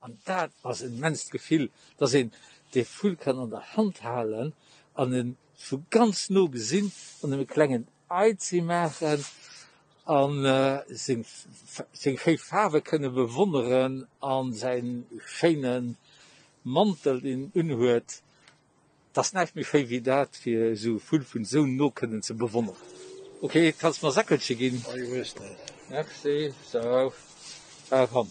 An dat ass en immenst Gefill, dass een dee Vull kann an der Hand halen an en vu ganz no gesinn an em e klengen Eizi maachen an seng seng schéi Faarwe kënne bewonneren an säin schéine Mantel deen en unhuet. 't ass näischt méi schéi wéi dat fir esou e Vull vun esou no kënnen ze bewonneren. Ok, kanns mer Säckelche ginn? Merci. Sou, da komm,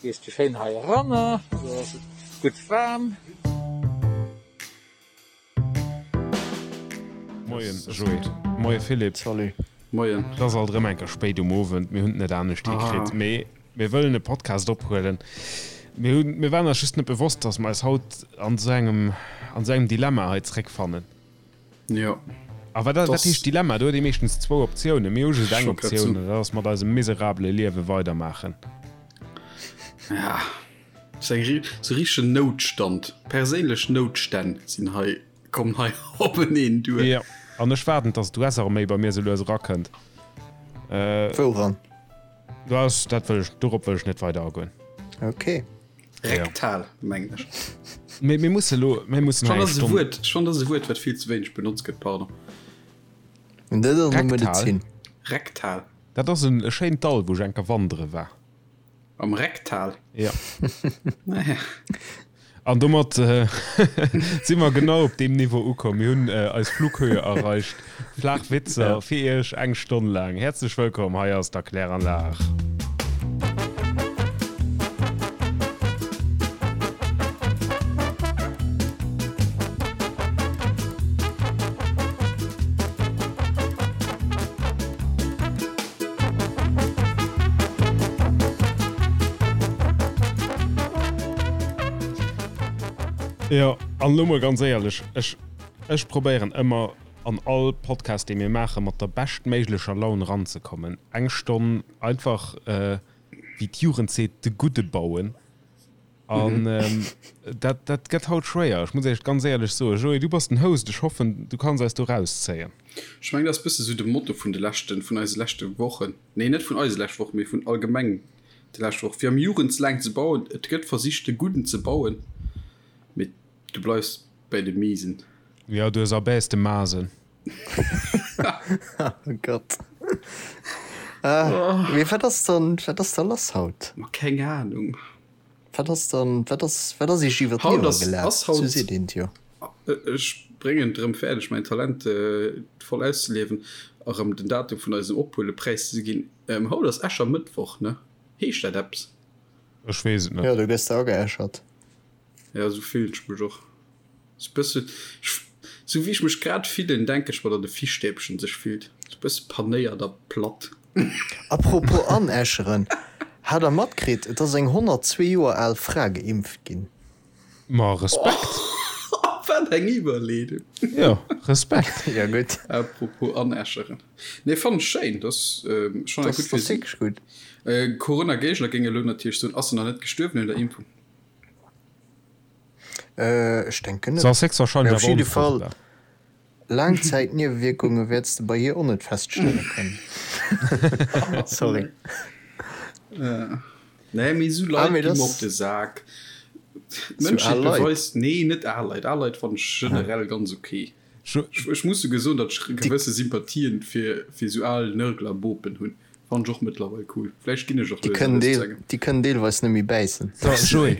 gees du schéin hei eranner, do ass et gutt waarm. Moien Joé, moie Philippe. Salut. Moien. Et ass alt erëm eng Kéier spéit um Owend, mir hunn et net anescht hikritt, mee mir wëllen e Podcast ophuelen. Mir hunn, mir waren eis just net bewosst, dass mer eis haut an esou engem, an esou engem Dilemma hei zréckfannen. Jo. A wat, wat heescht Dilemma? Do huet ee meeschtens zwou Optiounen. Mir hu just eng Optioun, an dat ass mat eisem miserabele Liewe weidermaachen. Ja, sou eng, sou richtegen Noutstand, perséinlech Noutstänn sinn hei. Kommen hei openeen duer. Jo, an ech waarden, dass d'US-Arméi bei mir sou lues erakënnt. Wouran? Dat, dat wëll ech, dorop wëll ech net weider agoen. Ok. Rektal, mengen ech. Mee mir musse lo, mir mussen hei eng Stonn. Wuert, ech fannen, dat ass e Wuert, wat vill ze wéineg benotzt gëtt, pardon. Dat ass an der Medezin. Rektal. Dat ass en e schéint Dall, wou ech eng Kéier wandere war. Am Rektal? Ja. Naja. An domat äh, si mer genau op deem Niveau ukomm. Mir hunn äh, eis Flughöhe erreicht. Flaach Witzer ja. fir Iech eng Stonn laang. Häerzlech wëllkomm, hei ass d'Erkläranlag. Jo, an elo mol ganz éierlech, ech, ech probéieren ëmmer an all Podcast, dee mir maachen, mat der beschtméiglecher Laun eranzekommen. Eng Stonn einfach, wéi d'Jugend seet, de Gudde bauen. An dat, dat gëtt haut schwéier. Ech muss Iech ganz éierlech soen, Joé, du bass den Host, ech hoffen, du kanns eis do rauszéien. Ech mengen, dat ass bësse sou de Motto vun de leschten, vun eise leschte Wochen. Nee, net vun eise leschte Wochen, mee vun allgemeng de leschte Wochen. Fir am Jugendslang ze bauen, et gëtt versicht, de Gudden ze bauen, mee du bleifs bäi de Miesen. Jo, du ersabäs de Masen. Oh Gott. Mee wat ass dann, wat ass da lass haut? Ma keng Ahnung. Wat ass dann, wat ass, wat ass iech iwwer d'Liewer gelaf? Sou seet een et jo. Ech bréngen et erëm fäerdeg, mäin Talent voll auszeliewen a rëm den Datum vun eisem Ophuele präiszeginn. Haut ass Äschermëttwoch, ne? Heescht dat eppes? Ech weess et net. Jo, do gëss de ageäschert. Jo, esou fillen ech mech och. Sou bësse, sou wéi ech mech grad fillen, denke ech mer, datt e Fischstäbchen sech fillt. Sou bësse panéiert a platt. A propos anäscheren, hat der matkritt, et ass eng 102 Joer al Fra geimpft ginn? Ma Respekt! Wat eng Iwwerleedung! Jo, Respekt! Jo gutt. A propos anäscheren, nee fannen ech schéin, dat ass schonn eng gutt fir si. Gutt. Corona-Géigner géinge elo natierlech soen, ass se nach net gestuerwen un der Impfung? Ech denken net. Se ass héchstwahrscheinlech awer onfruchtbar. Laangzäitniewewierkunge wäerts de bei hir och net feststelle kënnen. Sorry. Nee, mee esou Leit gi mer op de Sak. D'Mënschheet beweist, nee, net al Leit, al Leit fannen ech generell ganz ok. Ech muss souguer soen, datt ech gewësse Sympathien fir esou al Nörglerbopen hunn. Fannen ech och mëttlerweil cool. Vläicht ginn ech och lues a lues zu engem. Déi kënnen deelweis net méi bäissen. So, Joé,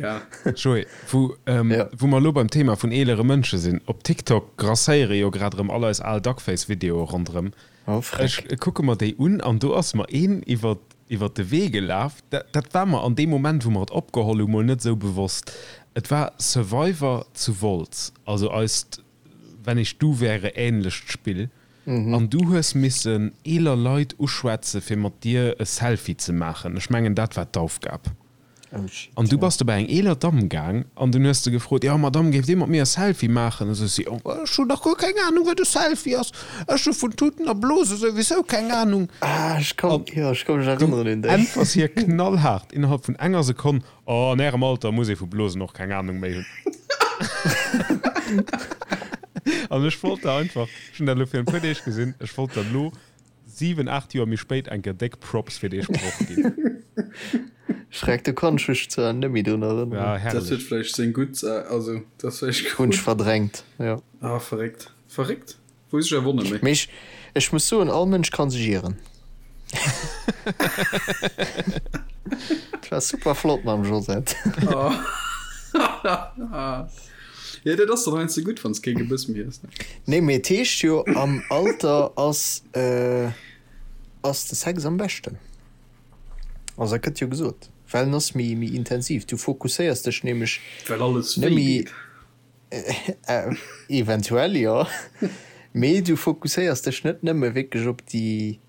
Joé, wou, wou mer elo beim Thema vun eelere Mënsche sinn, op TikTok grasséiere jo grad erëm all eis al Duckface-Videoe ronderëm. Oh, freck. Ech kucke mer déi un an do ass mer een iwwer, iwwer de Wee gelaf, dat, dat war mer an deem Moment, wou mer et opgeholl hu mol net esou bewosst. Et war Survivor zu Wolz, also eist Wenn ich du wäre ähnlecht Spill an du hues missen eeler Leit uschwätze fir mat dir e Selfie ze maachen. Ech mengen dat war d'Aufgab. An du bass du bei eng eeler Damm gaang an dunn hues de gefrot, jo Madame géift dir mat mir e Selfie maachen? Esou si, oh ech hunn dach guer keng Ahnung wat e Selfie ass, ech hu vun Tuten a Blose souwisou keng Ahnung. An du äntwers hir knallhaart innerhalb vun enger Sekonn, Oh, an ärem Alter muss ee vu Blosen och keng Ahnung méi hunn. An ech wollt der einfach, ech hunn dat elo virun e puer Deeg gesinn, ech wollt der elo 7, 8 Joer méi spéit eng Kéier déck Props fir dee Sproch ginn. Schreck, do kann ech mech zwar net méi drun erënneren. Ja, herrlech. Dat huet vläicht seng gutt, also dat ass vläicht Hunn ech verdrängt, jo. Ah, verréckt. Verréckt. Wou sech erwonne méi. Mee ech, ech muss soen, all Mënsch kann sech ieren. Et war super flott mam Josette. Jo, dat ass dann heiansdo gutt, wann s kee Gebëss méi hues, ne? Nee, mee et heescht jo, am Alter ass, ass de Sex am beschten. Also dat gëtt jo gesot, well en ass méi, méi intensiv. Du fokusséiers dech nämlech Well alles net wéi méi. geet. Eventuell jo, mee du fokusséiers dech net nëmme wierklech op déi,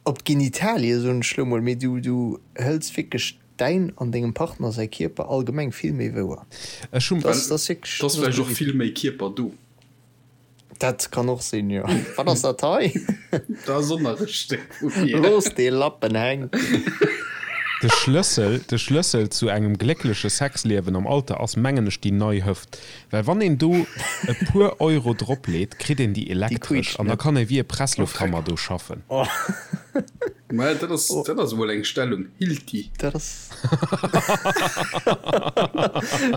op d'Genitalie soen ech lo mol, mee du du hëls wierklech däin an dengem Partner säi Kierper allgemeng vill méi wouer. Ech hunn. Dat ass wierklech. Et ass vläicht och vill méi Kierper do. Dat kann och sinn, jo. Wat ass dat hei? Dat ass och nach e Stéck vu mir. Looss dee Lappen hänken. De Schlëssel, de Schlëssel zu engem gléckleche Sexliewen am Alter ass, mengen ech, déi nei Hëft. Well wann een do e puer Euro drop leet, kritt een déi Déi elektresch quietscht an da net. kann ee wéi e Presslufthammer do schaffen. Mä dat ass, dat ass emol eng Stellung, Hilti. Dat ass.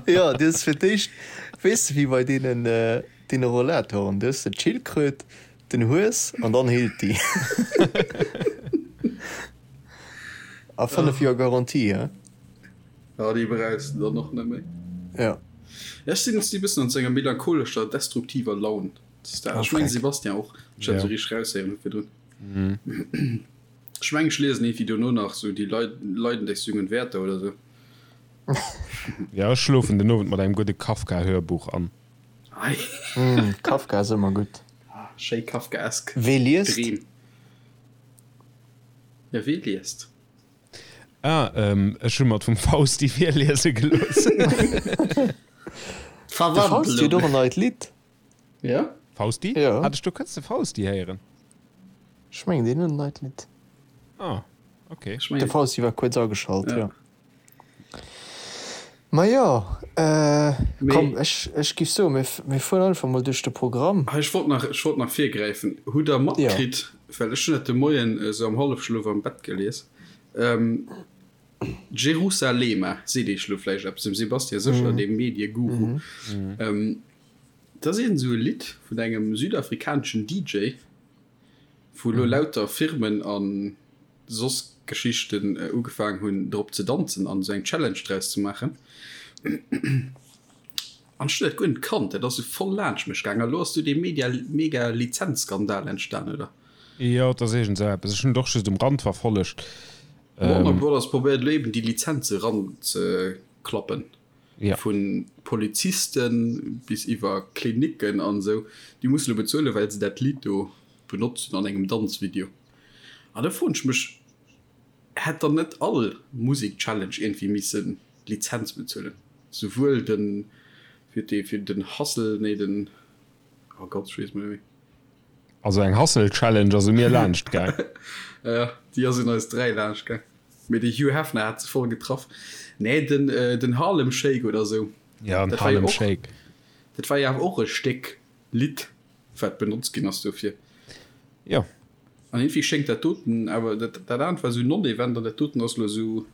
Jo, du hues fir d'éischt, weess de, wéi bei deenen, Deene Rollatoren, du hues de d'Schildkröt, den Hues an dann Hilti. A 5 Joer Garantie, he? Ja, déi brauchs de dann och net méi. Ja. Ja, ech sinn e bëssen an sou enger melancholescher, destruktiver Laun. Ech mengen Sebastian och. Ech hat esou richteg raushéieren hu virdrun. Ech mengen ech liesen iergendwéi dono nach sou Die Leiden des jungen Werther oder sou. Ja, ech schlofen den Owend mat engem gudde Kafka-Hörbuch an. Kafka ass ëmmer gutt. Schéi kafkaesk Wee liest? Dreem. Ja, wee liest? Ah, ech hu mer et vum Fausti virliese gelooss. De Fausti huet och en neit Lidd. Ja? Fausti? Ja. Hat ech do kënns de Fausti héieren? Ech mengen, deen huet en neit Lidd. Ah, okay. De Fausti war kuerz ageschalt, jo. Ma jo, komm, ech, ech giff soen, mir, mir fueren einfach mol duerch de Programm. Ech wollt nach, ech wollt nach virgräifen. Hutt Der matkritt, well ech hunn dat de Moien esou am Hallefschlof am Bett gelies, Jerusalema seet Iech elo vläicht eppes, dem Sebastian sécher, deem Medieguru. Dat ass iergend esou e Lidd vun engem südafrikaneschen DJ, wou elo lauter Firmen a soss Geschichten ugefaangen hunn drop ze danzen an esou eng Challenge draus ze maachen. An ech hunn dat guer net kannt, dat ass esou voll laanscht mech gaangen. A lo ass do dee Media mega Lizenzskandal entstan, oder? Jo, et ass iergend esou eppes. Ech hunn et och just um Rand verfollegt. Warner Brothers probéiert elo eben déi Lizenze ranzeklappen. Vu Poliziste bis iwwer Klinicken an esou, déi musse lo bezuelen, well se dat Lidd do benotzt hunn an engem Danzvideo. An da froen ech mech, hätt dann net all Musek-Challenge iergendwéi misse Lizenz bezuelen? Souwuel den, fir dee, fir den Hustle, nee den, oh Gott, ech weess et net méi. Also eng Hustle-Challenge ass u mir laanscht gaang. Jo, déi ass un eis 3 laanscht gaang. Mee de Hugh Hefner hat se voll getraff. Nee, den, den Harlem Shake oder sou. Ja, den Harlem Shake. Dat war jo awer och e Stéck Lidd, wat benotzt ginn ass dofir. Jo. An iergendwéi schéngt dat doten awer, dat, dat anert war sou non-event an dat doten ass elo sou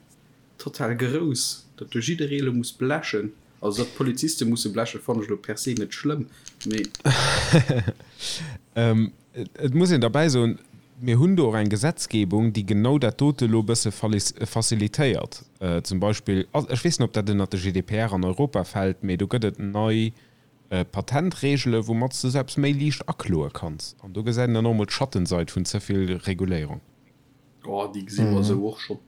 total grouss, datt do jidderee elo muss blechen. Also datt d'Poliziste musse blechen, fannen ech elo per se net schlëmm, mee. Et muss een derbäi soen, mir hunn do och eng Gesetzgebung, déi genau dat dote elo e bësse facilitéiert. Zum Beispill, ech weess net, ob dat ënnert de GDPR an Europa fält, mee do gëtt et nei Patentregele woumat s de sou eppes méi liicht akloe kanns. An do gesäit een dann och emol d'Schattenseid vun ze vill Reguléierung. Oh, déi gesi mer esou och schonn.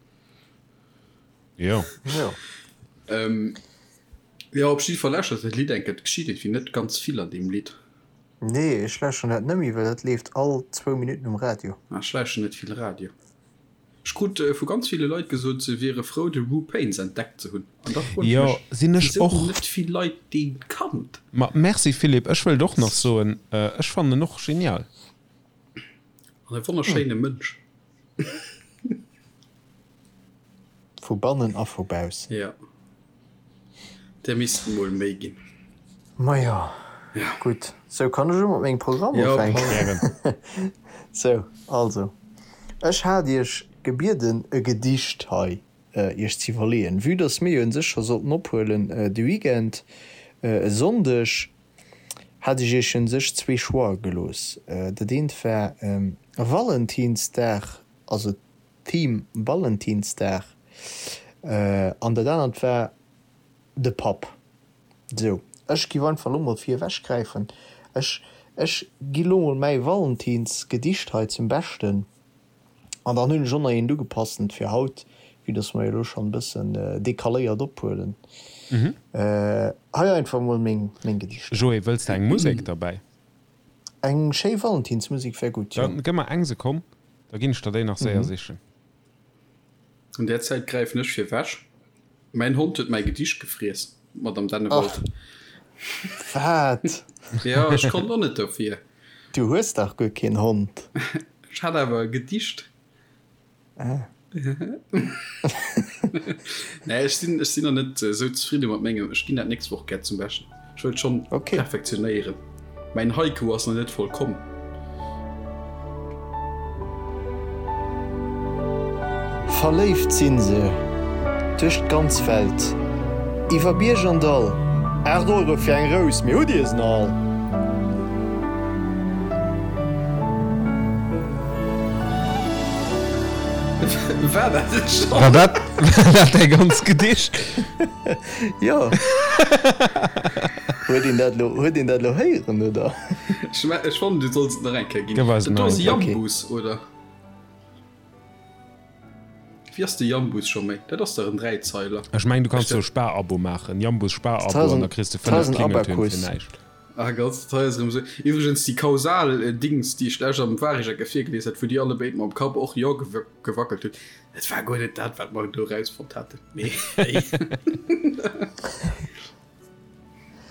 Jo. Jo. Jo, op jidde Fall lauschtert dat Lidd eng Kéier. Et geschitt iergendwéi net ganz vill an deem Lidd. Nee, ech lauschteren dat nëmme, well dat leeft all zwou Minutten um Radio. Ah, ech lauschteren net vill Radio. Ech krut vu ganz ville Leit gesot, se wiere frou, de Wu Pains entdeckt ze hunn. An da froen ech Jo, mech, sinn ech wisou och. hunn net vill Leit dee kannt? Ma merci Philippe, ech wëllt och nach soen, ech fannen en och genial. An e wonnerschéine Mënsch. Vu bannen a vu baussen. Jo, där missten mol méi ginn. Majo, gutt. Sou, kann ech elo mat mengem Programm ufänken? Gären. Sou, also, ech hat iech gebieden, e Gedicht hei. Iech ze iwwerleeën. Vue dass mir jo un sech scho sollten ophuelen de Weekend, e Sonndeg, hat ech Iech un sech zwee Choixë gelooss. Dat eent war Valentinsdag, also Theme Valentinsdag, an dat anert war de Papp. Sou, ech giff einfach lo mol vir ewech gräifen. Ech, ech gi lo mol mäi Valentinsgedicht hei zum Beschten an dann hunn ech och nach eent ugepassent fir haut, vue dass mer jo lo schonn e bëssen decaléiert ophuelen. Hei einfach mol meng, meng Gedichter. Joé, wëlls de eng Musek derbäi? Eng schéi Valentinsmusek wär gutt, jo. Dann gëmm mer eng Sekonn, da ginn ech der déi nach séier sichen. An där Zäit gräifen ech fir wech. Mäin Hond huet mäi Gedicht gefriess, Madame Dennewald. Ach, wat? Jo, ech konnt och net dofir. Du hues dach guer keen Hond. Ech hat awer e Gedicht. Ah. Nee, ech sinn, ech sinn nach net esou zefridde mat mengem. Ech ginn dat nächst Woch gär zum Beschten. Ech wëllt schonn okay. perfektionéieren. Mäin Haiku ass nach net vollkomm. Verléift sinn se duerch d'ganz Welt, iwwer Bierg an Dall. 8 Euro fir eng Rous, mee hutt Dir se nach all? War dat et schonn? War dat, war dat däi ganz Gedicht? Jo. Huet een dat elo, huet een dat elo héieren, oder? Ech, ech fannen, du solls et nach eng Kéier ginn. Gëff eis Dat do nach ass eng e Kéier. Jambus, oder? Wéi ass de Jambus scho méi? Dat ass dach en Dräizeiler. Ech mengen, du kanns jo e Sparabo maachen, Jambus Sparabo, an da kriss de 5 Klingeltöin fir näischt. Ah Gott, dat hei ass erëm esou. Iwwregens, déi kausal Dings, déi ech lech am Waregecke virgelies hat, wou dir allebéid mam Kapp och Jo gewackelt hutt, dat war guer net dat, wat mer do erausfonnt haten. Mee hey.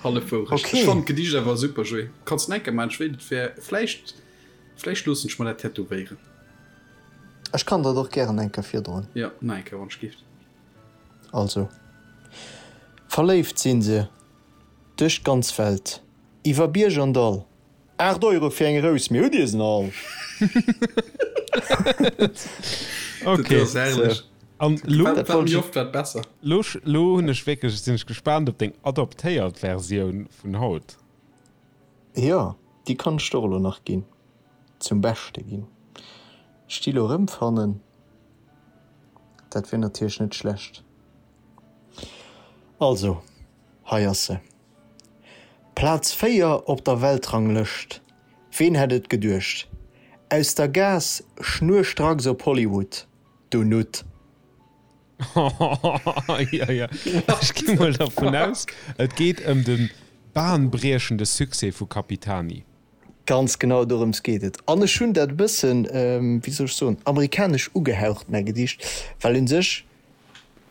Hallef Wourecht. Okay. Ech fannen d'Gedicht awer super, Joé. Kanns en enker maachen, ech wéilt et wär vläicht, vläicht loossen ech mer dat tätowéieren. Ech kann der et och gären eng Kéier virdroen. Jo, nach eng Kéier, wann ech gift. Also, verléift sinn se Duerch d'ganz Welt, iwwer Bierg an Dall. 8 Euro fir eng Rous, mee hutt Dir se all? Ok. Dat ass herrlech. An lo, Wat méi oft, wat besser. Lo, lo hunn ech wierklech, sinn ech gespaant op deng adaptéiert Versioun vun haut. Jo, déi kann ech der och elo nach ginn, zum Beschte ginn. Ech déi elo erëmfannen, dat wier natierlech net schlecht. Also, hei ass se. Plaz 4 op der Weltranglëscht, ween hätt et geduecht? Aus der Gaass schnurstracks op Hollywood, du Nutt. Jo, jo, ech gi mol dervun aus, et geet ëm de bahnbriechende Succès vu Capitani. Ganz genau dorëms geet et. An ech hunn dat e bëssen, wéi soll ech soen, amerikanesch ugehaucht, mäi Gedicht, well un sech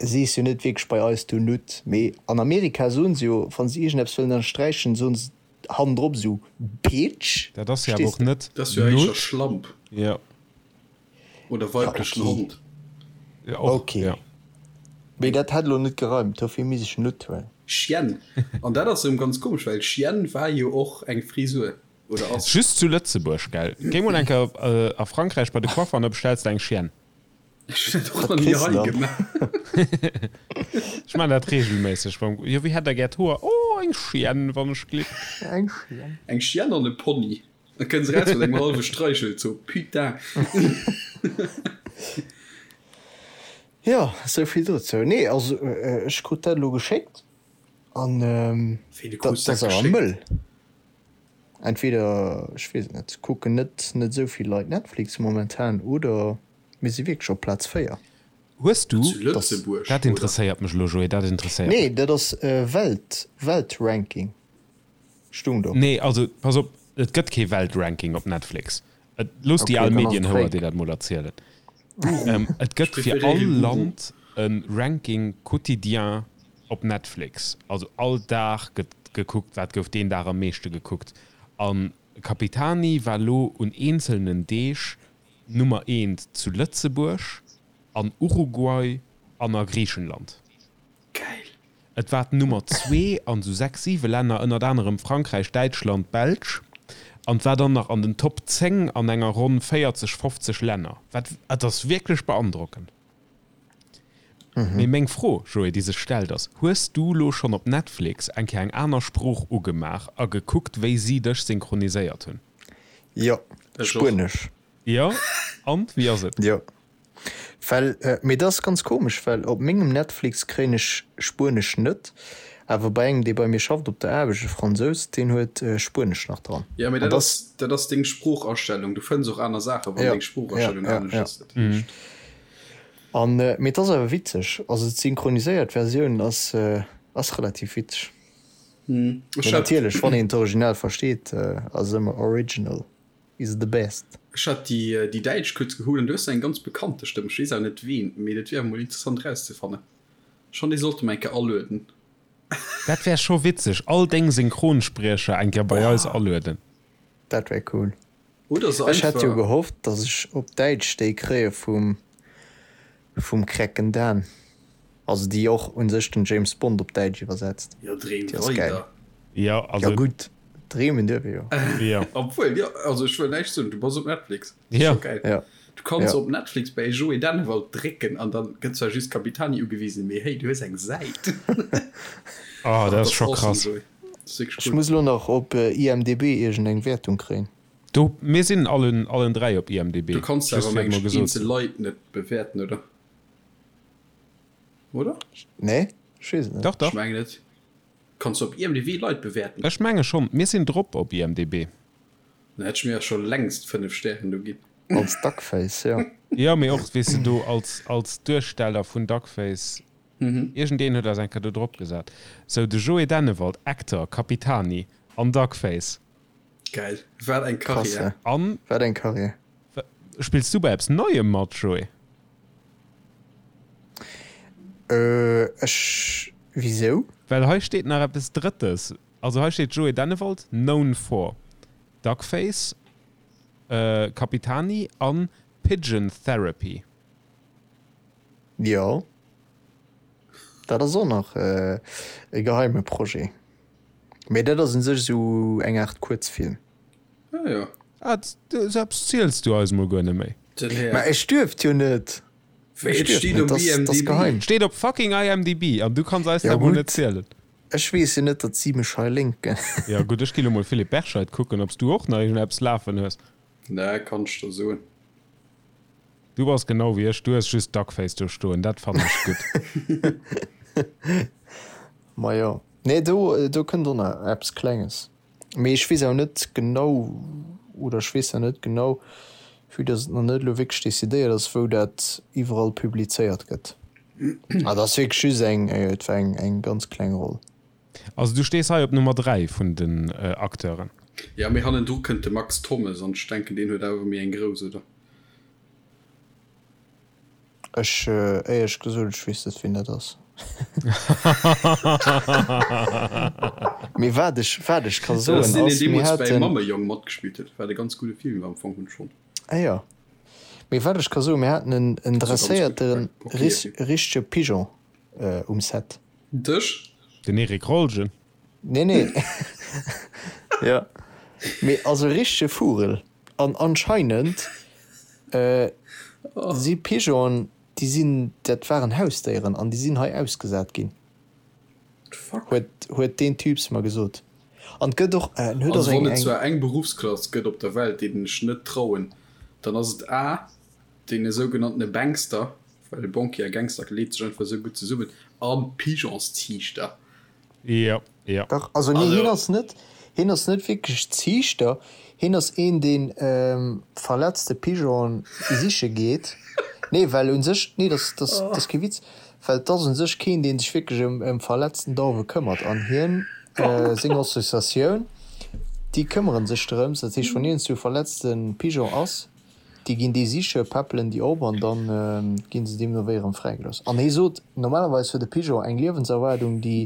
sees jo net wierklech bei eis du Nutt, mee an Amerika soen se jo, wann se iergendeppes wëllen ënnersträichen, soen se hannendrop esou Bitch. Dat ass jo awer Verstees och de? net Dat ass jo éischter Nutt. Schlamp. Jo. Oder Ja, weiblechen okay. Hond. Ja, och, Okay. ja. Mee dat hätt elo net gereimt, dofir misst ech Nutt huelen. Chienne. An dat ass erëm ganz komesch, well Chienne war jo och eng Frisur. Oder ass. Just zu Lëtzebuerg, gell? Géi mol eng Kéier a Frankräich bei de Coiffer an da bestells de eng Chienne. Ech hunn dat och Wat nach ni kriss de hei dann? gemaach. Ech maachen dat reegelméisseg beim, Jo, wéi hätt der gär d'Hoer? Oh, eng Chienne, wann ech glick. Eng Chienne. Eng Chienne an e Pony. Da kënns eraus mat engem hallwe Streichelzoo. Putain. Jo, esou vill dozou. Nee, also ech krut dat elo geschéckt an Wéi, du dat krus dat ass awer geschéckt? mëll. Entweder, ech weess et net, kucken net net esou vill Leit Netflix momentan oder mir si wierklech op Plaz 4. Hues du, Zu Lëtzebuerg, dat oder? interesséiert mech elo, Joé, dat interesséiert mech. Nee, dat ass Welt, Weltranking. Stung do. Nee, also pass op, et gëtt kee Weltranking op Netflix. Et, looss déi Okay, al dann ass et Medienhouer fake. dir dat mol erzielen. Guru. Et Ech gëtt fir preferéiere all Guru. Land e Ranking quotidien op Netflix. Also all Dag gëtt gekuckt, wat gouf deen Dag am meeschte gekuckt. A Capitani war lo un eenzelnen Deeg Nummer eent zu Lëtzebuerg, an Uruguay an a Griichenland. Geil. Et war d'Nummer zwee an esou 6, 7 Länner, ënnert anerem Frankräich, Däitschland, Belsch, an et war dann nach an den Top 10 an enger ronn 40, 50 Länner. Wat, et ass wierklech beandrockend. Mee meng Fro, Joé, déi sech stellt, ass, Hues du lo schonn op Netflix eng Kéier eng aner Sprooch ugemaach a gekuckt, wéi si dech synchroniséiert hunn? Jo, Spuenesch. Jo, an wéi ass et? Jo, well, mee dat ass ganz komesch, well op mengem Netflix kréien ech Spuenesch net, awer bei engem, dee bei mir schafft op der Aarbecht, e Fransous, deen huet Spuenesch nach dran. Jo, mee dat ass, dat ass deng Sproochastellung. Du fënns och aner Saachen, wann deng Sproochastellung anescht ass. Dat heescht. An, mee et ass awer witzeg, also d'synchroniséiert Versioun ass ass relativ witzeg. Mee natierlech, wann een d'Original versteet, ass ëmmer original is the best. Ech hat déi déi däitsch kuerz geholl an du hues eng ganz bekannte Stëmm, ech weess awer net ween, mee dat wier awer mol interessant erauszefannen. Schonn dee sollte mer eng Kéier alueden. Dat wär scho witzeg, all deng Synchronspriecher eng Kéier bei eis alueden. Dat wär cool. Oder se Ech hätt jo einfach. gehofft, dass ech op Däitsch déi kréie vum vum Krecken Dan. Also déi och un sech den James Bond op Däitsch iwwersetzt. Jo, dreem Déi ass gäil. weider. Jo, also. Jo gutt, dreemen duerf ee jo. Jo. Obwuel, jo, also ech wëll näischt soen, du bass op Netflix. Dat ass Jo. scho gäil. Jo. Du kanns Jo. op Netflix bäi Joé Dennewald drécken an dann gëtt zwar just Capitani ugewisen, mee hey, du hues eng Säit. Oh, Ach, dat dat ass ass scho awesome, krass. Joé. Dat ass wierklech Ech cool. muss elo nach op IMDb iergend eng Wäertung kréien. Do, mir sinn allen, allen 3 op IMDb. Du kanns Just awer fir et meng mol ech gesot eenzel ze hunn. Leit net bewäerten, oder? Oder? Nee, ech weess et net. Dach, Ech dach. mengen net. Kanns du op IMDb Leit bewäerten? Ech menge schonn. Mir sinn drop op IMDb. Dann hätt ech mir scho längst 5 Stären do ginn. Als Duckface, jo. Jo, mee och, weess de, do als, als Duersteller vun Duckface. Iergendeen huet eis eng Kéier do drop gesat. Sou, de Joé Dennewald, Actor, Capitani an Duckface. Geil, wat eng Krass, Karriär. hä? An Wat eng Karriär. spills du bei eppes Neiem mat, Joé? Äh, ech, wisou? Well hei steet nach eppes Drëttes. Also hei steet Joé Dennewald, known for Duckface, Capitani an Pigeon Therapy. Jo, dat ass och nach e geheime Projet. Mee dat ass un sech esou eng Aart Kuerzfilm. Ah jo. Ah, sou eppes ziels du eis mol guer net méi. Den Här. Mä ech duerft jo net. Wéi, Ech et duerft steet net, op dat ass, dat ass IMDb. geheim. Steet op fucking IMDb an du kanns eis Ja dat mol net gutt, zielen. ech weess jo net, datt si mech hei linken. Ja gutt, ech gi lo mol Philippe Berscheid kucken, ob s du och nach iergendeppes lafen hues. Nee, kann ech der soen. Du bass genau wéi ech, du hues just Duckface do stoen, dat fannen ech gutt. Majo. Nee, do, do kënnt och nach eppes Klenges. Mee ech weess awer net genau, oder ech weess nach net genau, vue dass et nach net elo wierklech decidéiert ass, wou dat iwwerall publizéiert gëtt. Ah, dat ass wierklech just eng, et war eng, eng ganz kleng Roll. Also du stees hei op Nummer 3 vun den Acteuren. Jo, mee hannendru kënnt de Max Thommes an ech denken, deen huet awer méi eng grouss, oder? Ech, éierlech gesot, ech weess net, wien dat ass. Mee wat ech, wat ech ka Dat soen ass deen, deen ass, mir deemools bäi haten. Mammejong matgespillt huet, wat e ganz gudde Film war am Fong hunn schonn. Ah jo. Mee wat ech ka soen, mir haten en, en Also ganz gutt, dresséierte okay, ris, okay. richtege Pigeon um Set. Dech? Den Eric Rolgen? Nee, nee. Jo. Mee also e richtege Vugel. An anscheinend si Pigeonen, déi sinn, dat waren Hausdéieren an déi sinn hei ausgesat ginn, huet, huet deen Typs mer gesot. An et gëtt och, en huet och Also wann eng, et eng. zwar eng Beruffsklass gëtt op der Welt, deenen ech net trauen, dann ass et a deene sougenanntene Bankster, well Banquier a Gangster leet sech einfach esou gutt zesummen, a Pigeonsziichter. Jo, jo. Dach, also nee, hien ass net, hien ass net wierklech Ziichter, hien ass een, deen verletzte Pigeonen siche geet. Nee, well u sech, nee, dat ass, dat ass kee Witz, well et ass u sech keen, dee sech wierklech ëm, ëm verletzten Dauwe këmmert. An hien, seng Associatioun, déi këmmere sech drëms. Dat heescht, wann iergendswou e verletzte Pigeon ass, déi ginn dee siche, peppelen déi op an da gi se deemno wéi erëm fräigelooss. An hie sot, normalerweis huet e Pigeon eng Liewenserwaardung, déi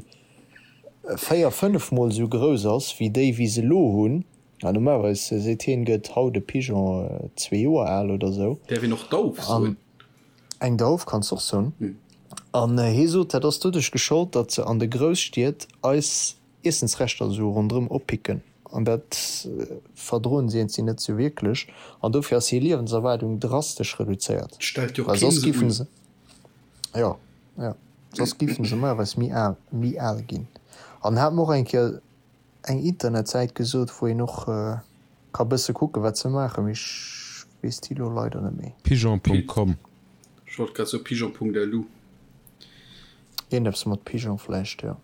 4, 5 mol esou grouss ass wéi déi, wéi se elo hunn. An normalerweis, seet hien, gëtt haut e Pigeon zwee Joer al oder esou. Däerf een och Dauf soen? Eng Dauf kanns de och soen. An hie sot, dat ass doduerch geschollt, datt se an de Grousstied eis Iessensreschter esou ronderëm oppicken an dat verdroen si eenzi net sou wierklech an dofir ass hir Liewenserwaardung drastesch reduzéiert. Stellt jo Well keen soss se giffen un. se, jo. Jo, soss giffen se normalerweis méi al, méi al ginn. An hat mer och eng Kéier eng Internetsäit gesot, wou een och ka bësse kucken, wat se maachen, mee ech weess déi elo leider net méi. Pigeon.com. Ech wollt grad soen pigeon.lu. Iergendeppes mat Pigeon vläicht, jo.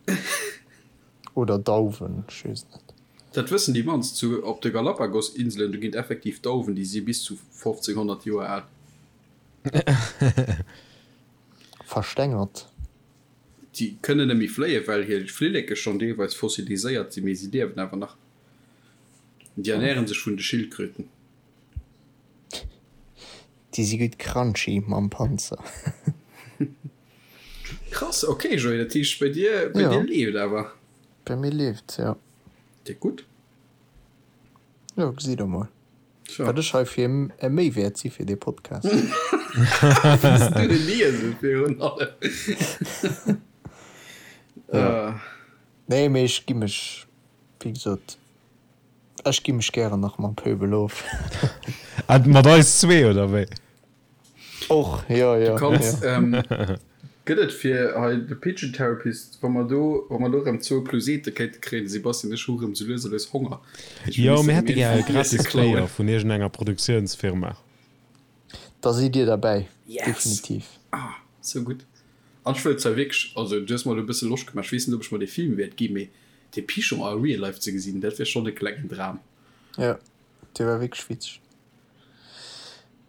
Oder Dauwen, ech weess et net. Dat wëssen déi mannst, zu op de Galapagos-Inselen, do ginn et effektiv Dauwen, déi si bis zu 1500 Joer al. Verstengert. Déi kënnen net méi fléien, well hir Flilleke schonn deelweis fossiliséiert sinn, mee si liewen awer nach. Déi ernäre sech vun de Schildkröten. Déi si gutt crunchy mam Panzer. Krass, ok Joé, dat heescht bei dir, bei dir leeft awer? Bei mir leeft, jo. Déck gutt. Jo, gesitt der mol. Wat ech hei fir e Méiwäert si fir dee Podcast. Wéis du de Liese virun allem. Nee, mee ech gi mech, wéi gesot, ech gi mech gären nach mam Pöbel of. Mat eis zwee, oder wéi? Och, jo, jo. Du kanns, gëtt et fir hei de Pigeon Therapist, wa mer do, wa mer do erëm zwou Plusete kéinte kréien, de Sebastian ech hu erëm sou lues a lues Honger. Jo, mir hätte gär e gratis Player vun iergendenger Produktiounsfirma. Da sidd Dir derbäi, definitiv. Ah, sou gutt. An ech wëll zwar wierklech, also du hues mer elo e bësse Loscht gemaach, ech weess net, ob ech mer dee Film wäert ginn, mee dee Pigeon a real life ze gesinn, dat wär schonn e klengen Dram. Jo, dee war wierklech witzeg.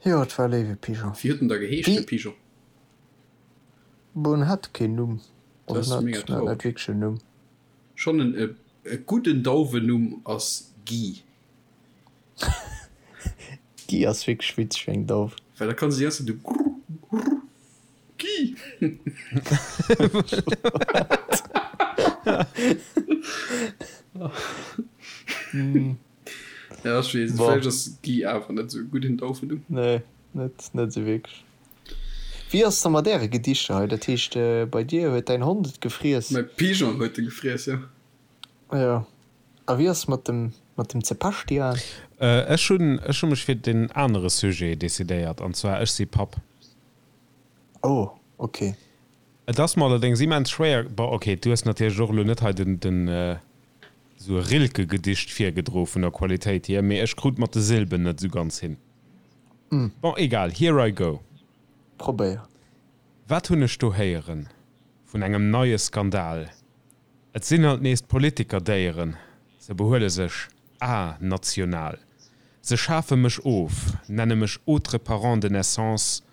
Jo, et war e léiwe Pigeon. Wéi huet en da geheescht, de Pigeon? Bon, en hat keen Numm. Dat ass mega traurig. En hat net wierklech en Numm. Schonn en e gudden Dauwennumm ass Guy. Guy ass wierklech witzeg fir eng Dauf. Well da kann se déi ganz Zäit esou grrr grrr Guy. Ja, ech weess, Bon. vläicht ass Guy awer net esou e gudden Daufenumm. Nee, net, net esou wierklech. Wéi ass et da mat äre Gedichter hei? Dat heescht, bei dir huet däin Hond et gefriess? Mäi Pigeon huet e gefriess, jo. Jo. A wéi ass et mat dem, mat dem Zebastian? Ech hunn, ech hu mech fir den anere Sujet decidéiert, an zwar Ech si Papp. Oh, ok. Et ass mer allerdéngs immens schwéier, bon, ok, du hues natierlech och elo net hei den, den, esou e Rilke-Gedicht virgedro vun der Qualitéit hier, mee ech krut mat de Silben net esou ganz hin. Bon, egal, here I go. Probéier. Wat hunn ech do héieren vun engem neie Skandal? Et sinn alt nees d'Politiker-Déieren, se behuele sech a-national. Se schafe mech of, nenne mech autre parent de naissance,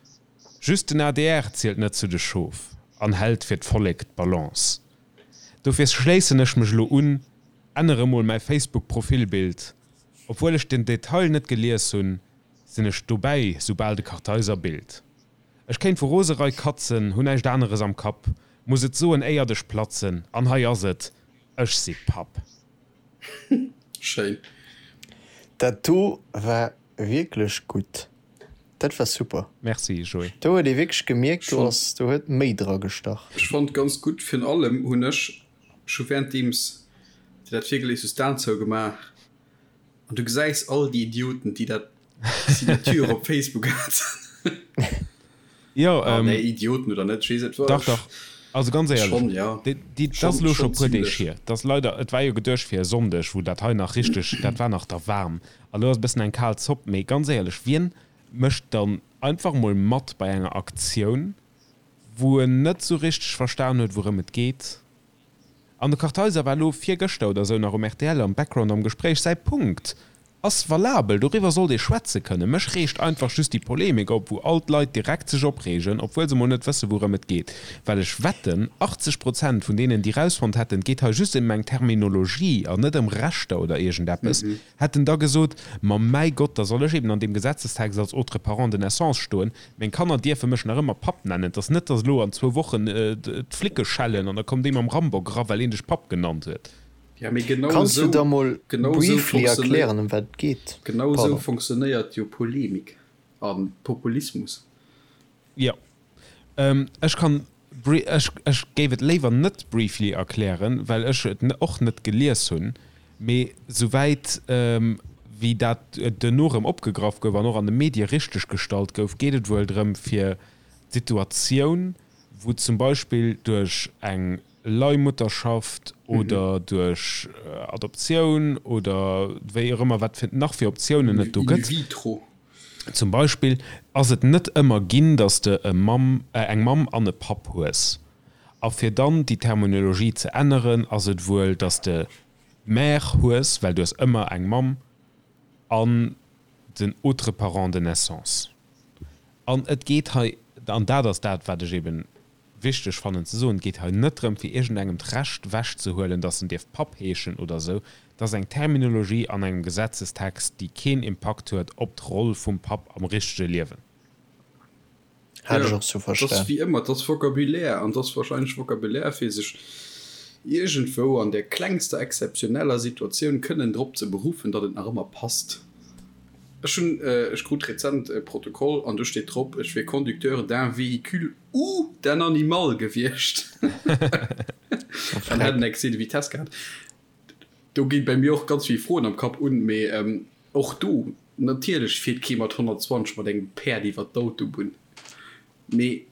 just den adr zielt net zu de Schof an hält fir d'Vollek d'Balance. Dofir schléissen ech mech elo un, ännere mol mäi Facebook Profilbild. Obwuel ech den Detail net gelies hunn, sinn ech dobäi soubal de Kartheiser billt. Ech kéint vu Roserei katzen, hu näischt aneres am Kapp, muss et soen éiert ech platzen, an hei ass et, ech si Papp. Schéin. Dat do war wierklech gutt. Dat war super. Merci Joé. Do huet ee wierklech gemierkt, do ass, do huet méi dra gestach. Ech fonnt ganz gutt, virun allem hunn ech scho währenddeems de dat virgelies hues d'Aen zougemaach an du gesäis all déi Idioten déi dat Signature op Facebook haten. Jo, Ah nee, Idioten oder net, ech weess et war. Dach, dach. Also ganz éierlech, Schon, ja. déi, déi, dat ass Schon, elo scho schon puer Deeg zimlech. hier. Dat ass leider, et war jo geduecht fir e Sonndeg, wou dat hei nach richteg, dat war nach da waarm. A lo ass e bëssen eng kal Zopp. Mee ganz éierlech, wien mécht dann einfach mol mat bei enger Aktioun, wou en net sou richteg verstan huet, wourëm et geet? An de Kartheiser war elo virgëschter oder esou nach um rtl am Background am Gespréich. Säi Punkt ass valabel, doriwwer sollt ee schwätze kënnen. Mech reegt einfach just déi Polemik op, wou all d'Leit direkt sech opreegen, obwuel se mol net wësse wourëm et geet. Well ech wetten, 80 Prozent vun deenen, déi rausfonnt hätten, et geet hei just ëm eng Terminologie an net ëm Rechter oder iergendeppes, hätten da gesot, Ma mäi Gott, da soll ech eben an deem Gesetzestext als autre parent de naissance stoen, meng Kanner dierfe mech nach ëmmer Papp nennen. Et ass net, datt elo an zwou Wochen d'Flicke schellen an da kommt ee mam Rambock era, well een dech Papp genannt huet. Ja, mee genau Kanns du esou, da mol genau esou briefly funktionéiert, erklären, ëm wat et geet? genau esou Pardon. funktionéiert jo Polemik a Populismus. Jo, ech kann Ech géif et léiwer net briefly erklären, well ech et och net gelies hunn, mee souwäit wéi dat duerno erëm opgegraff gouf an och an de Medie richteg gestallt gouf, geet et wuel drëm fir d'Situatioun, Wou zum Beispill duerch eng Leihmutterschaft oder duerch Adoptioun oder wéi och ëmmer, wat fir nach fir Optiounen et do gëtt. In vitro. Zum Beispill ass et net ëmmer ginn, datt s de e Mamm, eng Mamm an e Papp hues. A fir dann déi Terminologie ze änneren, ass et wuel, datt s de Mère hues, well du hues ëmmer eng Mamm an den autre parent de naissance. An et geet hei, an dat ass dat, wat ech eben wichteg fannen ze soen, et geet hei net drëm, fir iergendengem d'Recht ewechzehuelen, datt en dierf Papp heeschen oder esou. Et ass eng Terminologie an engem Gesetzestext, déi keen Impakt huet op d'Roll vum Papp am richtege Liewen. Hat ech och sou Et ass verstan. wéi ëmmer, et ass Vocabulaire an et ass wahrscheinlech Vocabulaire, fir sech iergendwou an der klengster exzeptioneller Situatioun kënnen drop ze beruffen, datt et nach ëmmer passt. Ech hunn, ech krut rezent e Protokoll an do steet drop, ech wier Conducteur d'un véhicule ou d'un animal gewiescht an hätt en Excès de vitesse gehat. Do gi bei mir och ganz vill Froen am Kapp un, mee och do, natierlech fiert kee mat 120 mat engem Päerd iwwer d'Autobunn, mee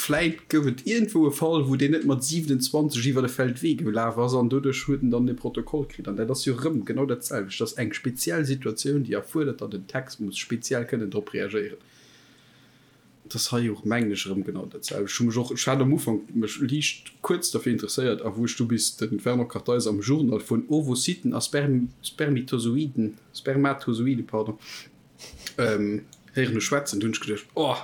vläit gouf et iergendwou e Fall, wou deen net mat 27 iwwer e Feldwee gelaf ass an doduerch huet en dann e Protokoll kritt. An dat ass jo erëm genau dat selwecht, dat ass eng speziell Situatioun, déi erfuerdert, datt en Text muss speziell kënnen drop reagéieren. Et ass hei och, mengen ech, erëm genau dat selwecht. Ech hu mech och, ech hat am Ufank mech liicht kuerz derfir interesséiert, a wou ech du bis de Fernand Kartheiser am Journal vun Ovocyten a Spermitozoiden, Spermatozoide, pardon, héieren hu schwätzen, du hunn ech geduecht, oh,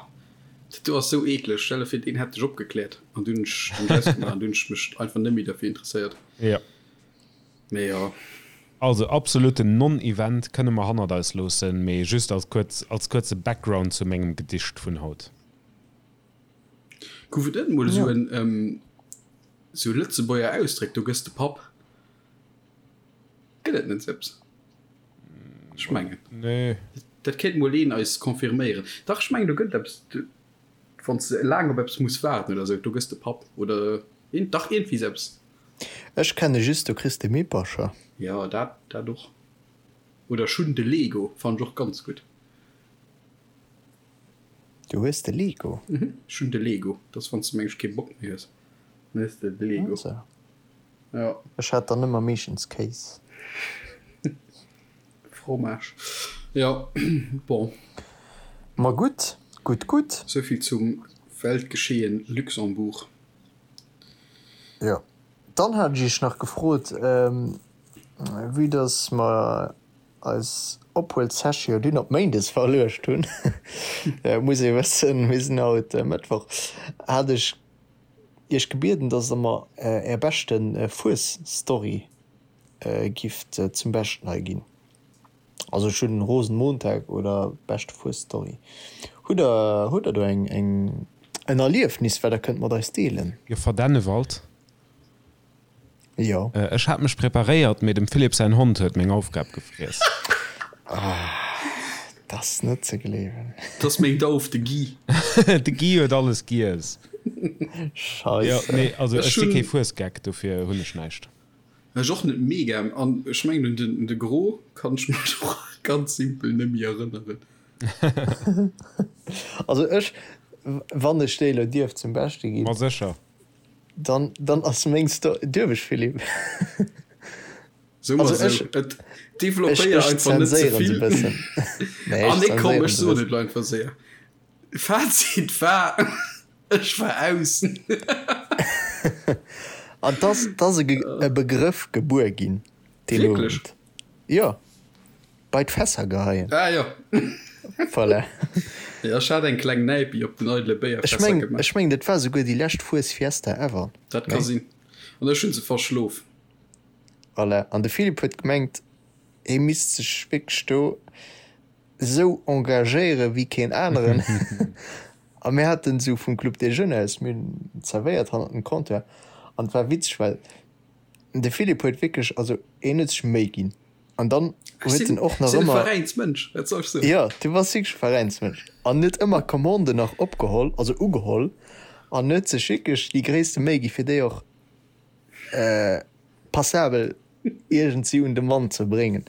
dat do ass sou eekleg, stell der vir, deen hätt dech opgekläert. An du hunn ech den ausgemaach an du hunn ech mech einfach net méi derfir interesséiert. Jo. Mee jo. Also absoluten Non-Event, kënne mer hannert eis loossen, mee just als kuerz, als kuerze Background zu mengem Gedicht vun haut. Gouf et net mol esou en, esou Lëtzebuerger Ausdréck, do gëss de Papp? Gëtt et net esou eppes? Ech mengen. Nee. Dat kéint mol een eis confirméieren. Dach, ech mengen do gëtt et eppes, wann s de laang op eppes muss waarden oder esou, do gëss de Papp oder dach iergendwéi esou eppes. Ech kenne just do kriss de Mippercher. Jo dat dat och. Oder ech hunn de Lego, fannen ech och ganz gutt. Du hues de Lego? Mhm, ech hunn de Lego. Dat ass wann s de mengs kee Bock méi hues, dann hues de de Lego. Also. Jo. Ech hat dann ëmmer meeschtens Kéis. Fromage. Jo, bon. Ma gutt, gutt, gutt. Souvill zum Weltgeschehen Luxembourg. Jo, dann hat ech iech nach gefrot, vue dass mer eis Ophuel-Session dunn op Méindes verluecht hunn, muss ee wëssen, mir sinn haut Mëttwoch, hat ech iech gebieden, dass der mer är beschte Fues-Story gifft zum Beschten hei ginn. Also ech hunn Rosenmontag oder beschte Fuesstory. Hutt der hutt der do eng eng en Erliefnis wat der kënnt mat eis deelen? Joffer Dennewald. Jo. Ech hat mech preparéiert, mee dem Philippe säin Hond huet meng Aufgab gefriess. Ah, dat ass net ze gleewen. Dat ass meng Dauf, de Guy. De Guy huet alles giess. Scheisse. Jo, nee, also ech si kee Fuesgeck, dofir hunn ech näischt. Ech och net mega, an ech mengen un den de Gros kann ech mech och ganz simpel nemmi erënneren. Also ech, wann ech déi elo dierf zum Beschte ginn. Ma sécher. Dann, dann ass meng Sto-, dierf ech Philippe? So mer Also sou, ech, et ech, developpéier ech einfach net ze zenséieren se vill. bëssen. Nee, Ah ech nee komm, zenséieren ech se soen bëssen. et elo einfach séier. Fazit war, Ech war aus. An 't ass e Begrëff gebuer ginn deen Wierklech? Owend. Jo, bei d'Fässer geheien. Ah jo. Voilà. Jo, ech hat eng kleng Näipi op den eidele Ech Béierfässer meng, gemaach. ech meng, dat war souguer déi lescht Fues Fiesta ever. Dat ka Nee? sinn. An ech hunn se verschlof. Voilà. An de Philippe huet gemengt, hie misst sech wierklech do esou engagéiere wéi keen aneren. A mir haten esou vum Club des Jeunes aus, mir hunn zerwéiert hannert dem Comptoir an et war witzeg, well de Philippe huet wierklech, also hien huet sech Méi ginn an dann Ech huet sinn, en och nach sinn e ëmmer, Veräinsmënsch, wat soll ech soen? jo, du bass wierklech e Veräinsmënsch an huet ëmmer Commanden nach opgeholl, also ugeholl an huet sech wierklech déi gréisste Méi gi fir déi och passabel iergendsi un de Mann ze bréngen.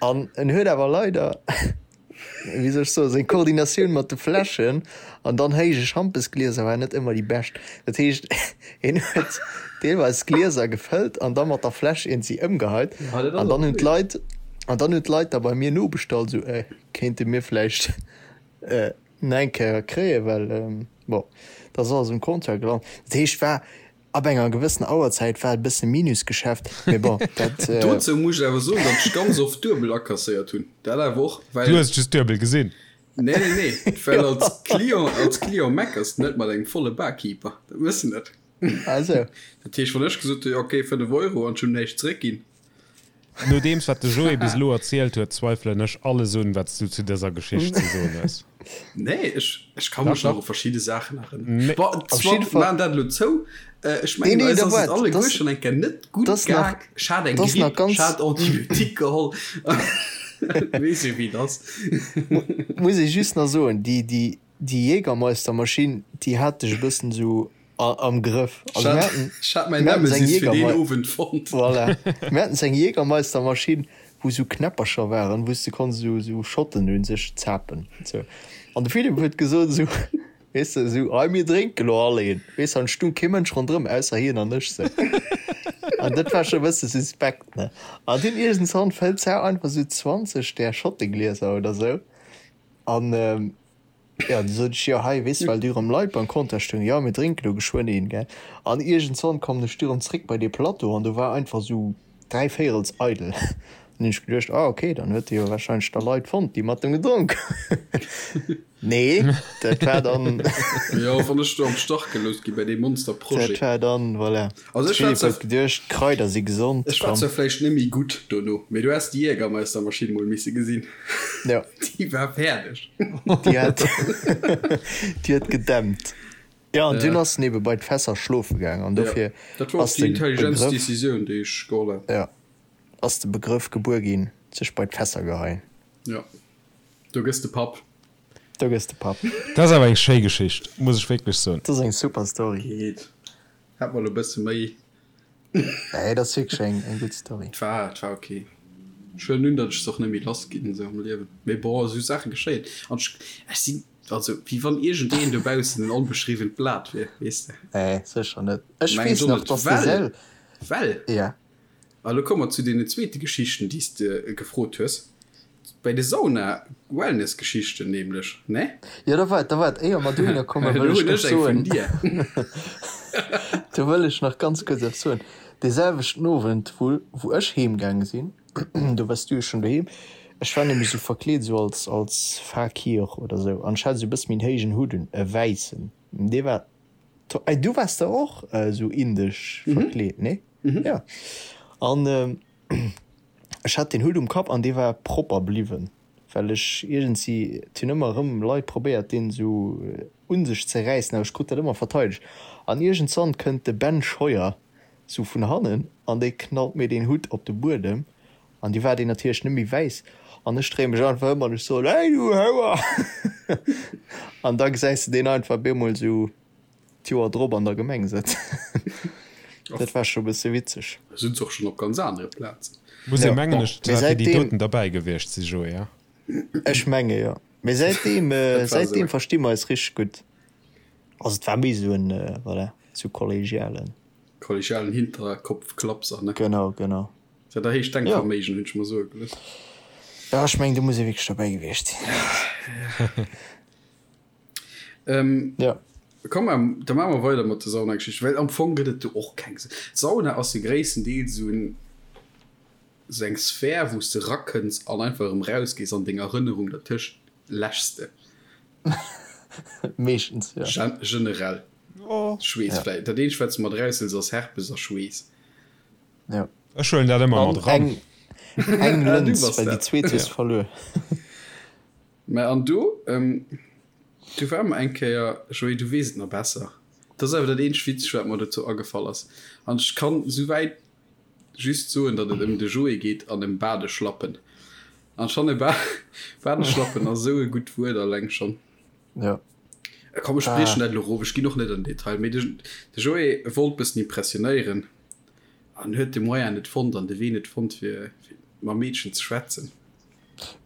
An en huet awer leider. wéi soll ech soen, seng Koordinatioun mat de Fläschen an dann héije Schampesglieser war net ëmmer déi bescht. Dat heescht, hien huet deelweis d'Glieser gefëllt an da mat der Fläsch iergendwéi ëmgeheit. An dann hunn d'Leit, an dann hunn d'Leit da bei mir nobestallt, esou, Äh, kéinte mir vläicht nach eng Kéier kréien, well bon, da ass alles um Comptoir gelant. Dat heescht, war Ab enger gewëssener Auerzäit war et e bësse Minusgeschäft, mee bon, dat. Dozou muss ech awer soen, datt ech ganz oft duebel akasséiert hunn. Dat awer och, well. Du hues just duebel gesinn. Nee, nee, nee, well als Client, als Client meckers de net mat engem volle Barkeeper. Dat mëss de net. Ah sou. Dat heescht, wann ech gesot hunn, jo okay, 5 Euro an ech hunn näischt zeréckginn. Nodeems wat de Joé bis elo erzielt huet, zweifelen ech alles un, wat s du zu dëser Geschicht ze soen hues. Nee, ech, ech ka mech nach u verschidde Saachen erënneren. Nee. Bon, Op jidde Fall. Maachen dat elo zou. Ech mengen, Nee, nee, eis da ass et waart, alleguer das, schonn eng Kéier net gutt das nach, gaang. Ech hat eng das nach Gripp, ech ganz, hat Antibiotique geholl. Weess jo, wéi et ass. Muss ech just nach soen, déi, déi, déi Jägermeistermaschinn, déi hat dech e bëssen esou am Grëff. Also mir haten, Ech hat mäin mir haten seng Nemesis fir deen Jägermei Owend fonnt. voilà, mir haten seng Jägermeistermaschinn, wou sou Knäppercher waren, wou s de konns esou esou Schotten un sech zapen sou. An de Philippe huet gesot esou, weess de, esou, hei mir drénke lo all een, weess de, an et stung kee Mënsch ronderëm ausser hien an ech sou. An dat war scho e bësse suspekt, ne. An dunn iergendwann fëllt d'Sau einfach esou 20 där Schotteglieser oder sou an, Jo, du sot ech, jo hei, weess de, well du erëm Leit beim Comptoir stoungen, jo mir drénken elo geschwënn een, gell. An iergendzwann kommen ech du erëm zréck bei dee Plateau an do war einfach esou dräivéierels eidel. An hunn ech geduecht, ah ok, dann huet e jo warscheinlech da Leit fonnt, déi mat em gedronk hunn. Nee, dat war dann. Jo, wann ech do am Stach gelooss gi bei deem Monsterprojet. Dat war dann, voilà. Also ech war Philippe huet geduecht, d'Kraider si gesond, Ech war zwar vläicht net méi gutt dono, mee du häss déi Jägermeistermaschinn mol misse gesinn. Jo. Déi war fäerdeg. Déi hat, déi huet gedämpt. Jo, an dunn ass en ebe bei d'Fässer schlofe gaang an dofir Dat war och ass déi de intelligentst Begrëff, Decisioun, déi ech geholl hat. jo, ass de Begrëff gebuer ginn, sech bei d'Fässer geheien. Jo, do gëss de Papp. Do gëss de Papp. Dat ass awer eng schéi Geschicht, muss ech wierklech soen. Dat ass eng super Story. Geet. Hat mer lo bësse méi. Nee, dat ass wierklech eng eng gutt Story. Et war, et war ok. Ech huelen un, datt ech se och net méi lass ginn esou am Liewen. Mee bon, esou Saache geschéien. An ech, ech sinn, also wéi wann iergendeen dobaussen en onbeschriwwent Blat wier, weess de. Nee, sécher net. Ech weess nach, datt de Sel. Well, Ja. A lo komme mer zu deenen zweete Geschichten, déi s de gefrot hues. Bei de Sauna-Wellness-Geschichten nämlech, ne? Jo, da waart, da waart, éier mer dohinner kommen, wëll ech nach soen, do wëll ech nach ganz kuerz eppes soen. Dee selwechten Owend, wou, wou ech heemgaange sinn, do waars du jo schonn doheem, ech war nämlech esou verkleet, esou als, als Fakir oder esou, an ech hat esou e bësse méi en héijen Hutt un, e wäissen, dee war to-, du waars der och esou indesch verkleet, nee? Jo. An Ech hat deen Hutt um Kapp an dee war propper bliwwen, well ech iergendsi, et hunn ëmmer erëm Leit probéiert deen esou un sech ze räissen, awer ech krut dat ëmmer verteidegt. An iergendzwann kënnt de Ben Scheuer sou vun hannen an dee knallt mir deen Hutt op de Buedem an du war deen natierlech net méi wäiss an ech dréie mech einfach ëm an ech soen, Hey du Houer! An da gesäis de deen einfach bemol sou d'Joer drop an der Gemeng sëtzen. Dat war scho bësse witzeg. Sinn se och schonn op ganz anere Plazen. Muss ee mengen ech zwar fir déi doten derbäi gewiescht si Joé, ja? Ech menge jo. Mee säitdeem, säitdeem versti mer eis richteg gutt. Also et war méi esou en, voilà, esou kollegialen. Kollegialen Hinterkopfklapser, ne? Genau, genau. Dat erhéicht Denkverméigen, hunn ech mer soe gelooss. Jo, ech mengen do muss ee wierklech derbäi gewiescht sinn. Ähm, ja. Komm, ähm, da maache mer weider mat der Saunageschicht, well am Fong gëtt et do och keng. D'Sauna ass jo gréisstendeels esou en, esou eng Sphär, wou s de rakënns an einfach erëm rausgees an deng Erënnerung dertëscht läschs de. Meeschtens, jo. Gen generell. Oh. Schweess Ja. vläicht. Dat eenzegt, wat s de mat eraushëls, ass Herpes a Schweess. Ja. Ech huelen dat ëmmer An mat eran. eng, eng Ah, du Lëns, bass well déi dat. zweet hues Ja. verluer. Mä an do, do ware mer eng Kéier, Joé, du weess et nach besser, dat ass awer dat eenzegt Witzegt, wat mer dozou agefall ass, an ech kann souwäit just soen, datt et ëm de Joé geet an ëm Badeschlappen. An ech fanne Badeschlappen ass esou e gutt Wuert alleng schonn. Jo. Komm, ech briechen dat elo erof, ech ginn och net an den Detail, mee de Joé wollt bëssen impressionéieren an huet de Moyen net fonnt an de Wee net fonnt, fir mam Meedchen ze schwätzen.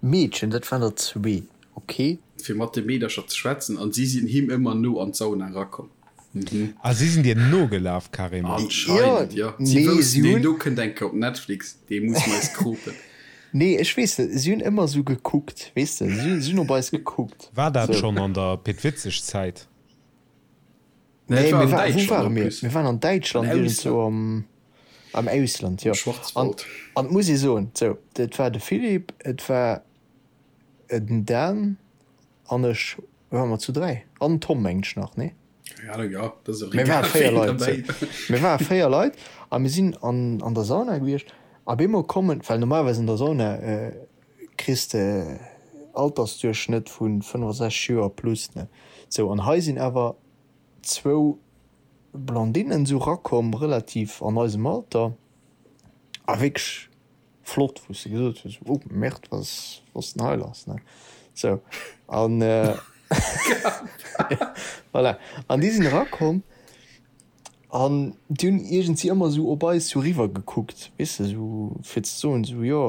Meedchen, dat waren der zwee. Ok. Fir mat de Meedercher ze schwätzen an si sinn him ëmmer no an d'Sauna erakomm. Mhm. Ah, si sinn dir nogelaf carrément? Anscheinend, jo. Si woussten, deen do kënnt eng Kéier op Netflix, dee muss mer eis kropen. Nee, ech weess net, si hunn ëmmer esou gekuckt, weess de, si hunn op eis gekuckt. War dat schonn an der Pit Witzeg-Zäit? Nee, mir war, wou ware mir? Mir waren an Däitschland, iergendzwou am, am Ausland, jo. An, an et muss ee soen, sou, et war de Philippe, et war den Dan an ech, ware mer zu 3, an den Tom mengen ech nach, nee? Keng Ahnung, jo, dat ass och egal, ween derbäi war. Mir ware 4 Leit a mir sinn an, an der Sauna gewiescht a bemol kommen, well normalerweis an der Sauna kriss de Altersduerchschnëtt vu 65 Joer plus, ne? Sou, an hei sinn awer zwou Blondinnen sou rakomm, relativ an eisem Alter a wierklech flott, wou s de gesot hues, oh Merde, wat ass, wat ass denn hei lass, ne? Sou, an voilà, an déi sinn erakomm an déi hunn iergendwéi ëmmer sou op eis sou riwwer gekuckt, weess de, sou fir ze soen, sou jo,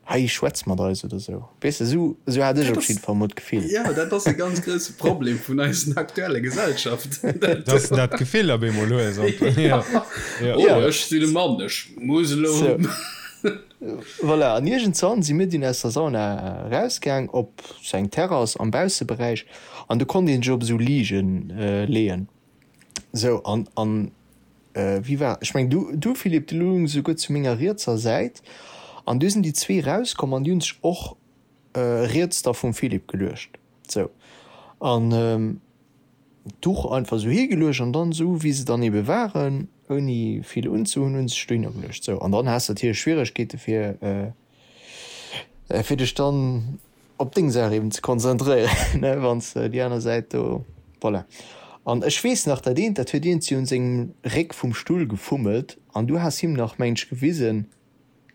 Hei schwätz mat eis oder sou. Weess de, sou, sou hat ech op jidde Fall mol d'Gefill. Jo, dat ass e ganz grousse Problem vun eisen aktuelle Gesellschaft. Dass de dat Gefill op eemol hues. Jo. Oh, ech sinn e Mann, ech muss elo. Sou. Voilà, an iergendzwann si mir dunn aus der Sauna erausgaang op sou eng Terrass am Bausseberäich an do konnt ee sech op esou Liigen leeën. Sou, an, an wéi war, ech mengen du, du Philippe, du loungs esouguer zu menger rietser Säit an du sinn déi zwee rauskomm an déi hunn sech och riets da vum Philippe geluecht. Sou, an d'Duch einfach esou higeluecht an dann esou wéi se dann ebe waren, ouni vill unzehunn, hunn se sech dohinner geluecht. Sou, an dann has de natierlech Schwieregkeete fir, fir dech dann op deng Saach eben ze konzentréieren, ne, wann s de déi aner Säit do, voilà. An ech weess nach, dat eent, dat huet iergendwéi un sengem Réck vum Stull gefummelt an du has him nach, mengen ech, gewisen,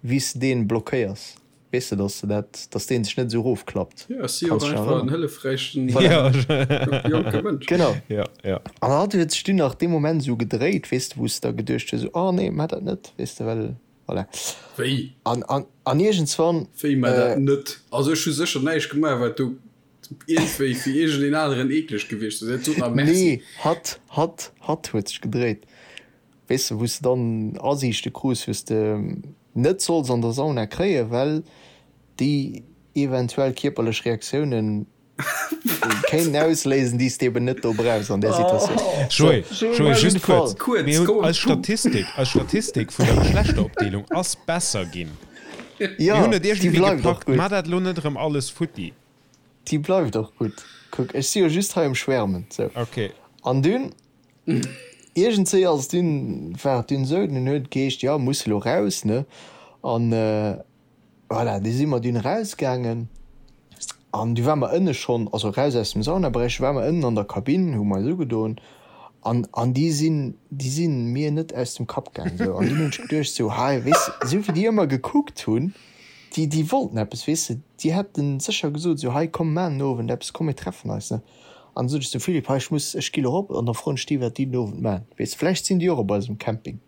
wéi s de deen blockéiers, weess de, dass de dat, dass deen sech net esou erofklappt. Jo, ech si jo och einfach en hëllefräichen jonke Mënsch. Genau. Jo, jo. An hatt huet sech dunn nach dee Moment esou gedréit, weess de, wou s de da geduecht hues, esou, oh nee, maach dat net, weess de, well. Voilà. Wéi? An, an, an iergendswann. Wéi, mä dat net? Also ech hu sécher näischt gemaach, wat do iergendwéi fir iergendeen aneren eekleg gewiescht ass. Et sot nach Merci. Nee, hatt, hatt, hatt huet sech gedréit. Weess de, wou s de dann Asiichte krus, wou s de net solls an der Sauna kréien, well déi eventuell kierperlech Reaktiounen Kéinten ausléisen, déi s de eben net do brauchs an där Situatioun. Joé, Joé, just kuerz, mir hunn eis Statistik, eis Statistik vun der Geschlechteropdeelung ass besser ginn. Mir hunn et iergendwéi gepackt. Mar dat elo net erëm alles futti. Déi bleift och gutt. Kuck, ech si jo just hei um Schwärmen. Sou. Ok. An dunn, iergendswéi ass et dunn, war et dunn esou, dunn huet et geheescht, jo, muss elo raus, ne? An Voilà, du si mer dunn erausgaangen an du ware mer ënne schonn, also eraus aus dem Saunaberäich, du ware mer ënnen an der Kabinn, hu mer eis ugedoen an an déi sinn, déi si mir net aus dem Kapp gaangen esou. An dunn hunn ech geduecht esou, hei, weess de, esou wéi déi ëmmer gekuckt hunn, déi, déi wollten eppes, weess de, déi hätte sécher gesot esou, hei komm mar den Owend eppes, komm mir treffen eis, ne. An du sot ech zum Philippe, hei ech muss, ech gi lo erop an da froen ech déi, wat déi den Owend maachen, weess de, vläicht sinn déi och op eisem Camping.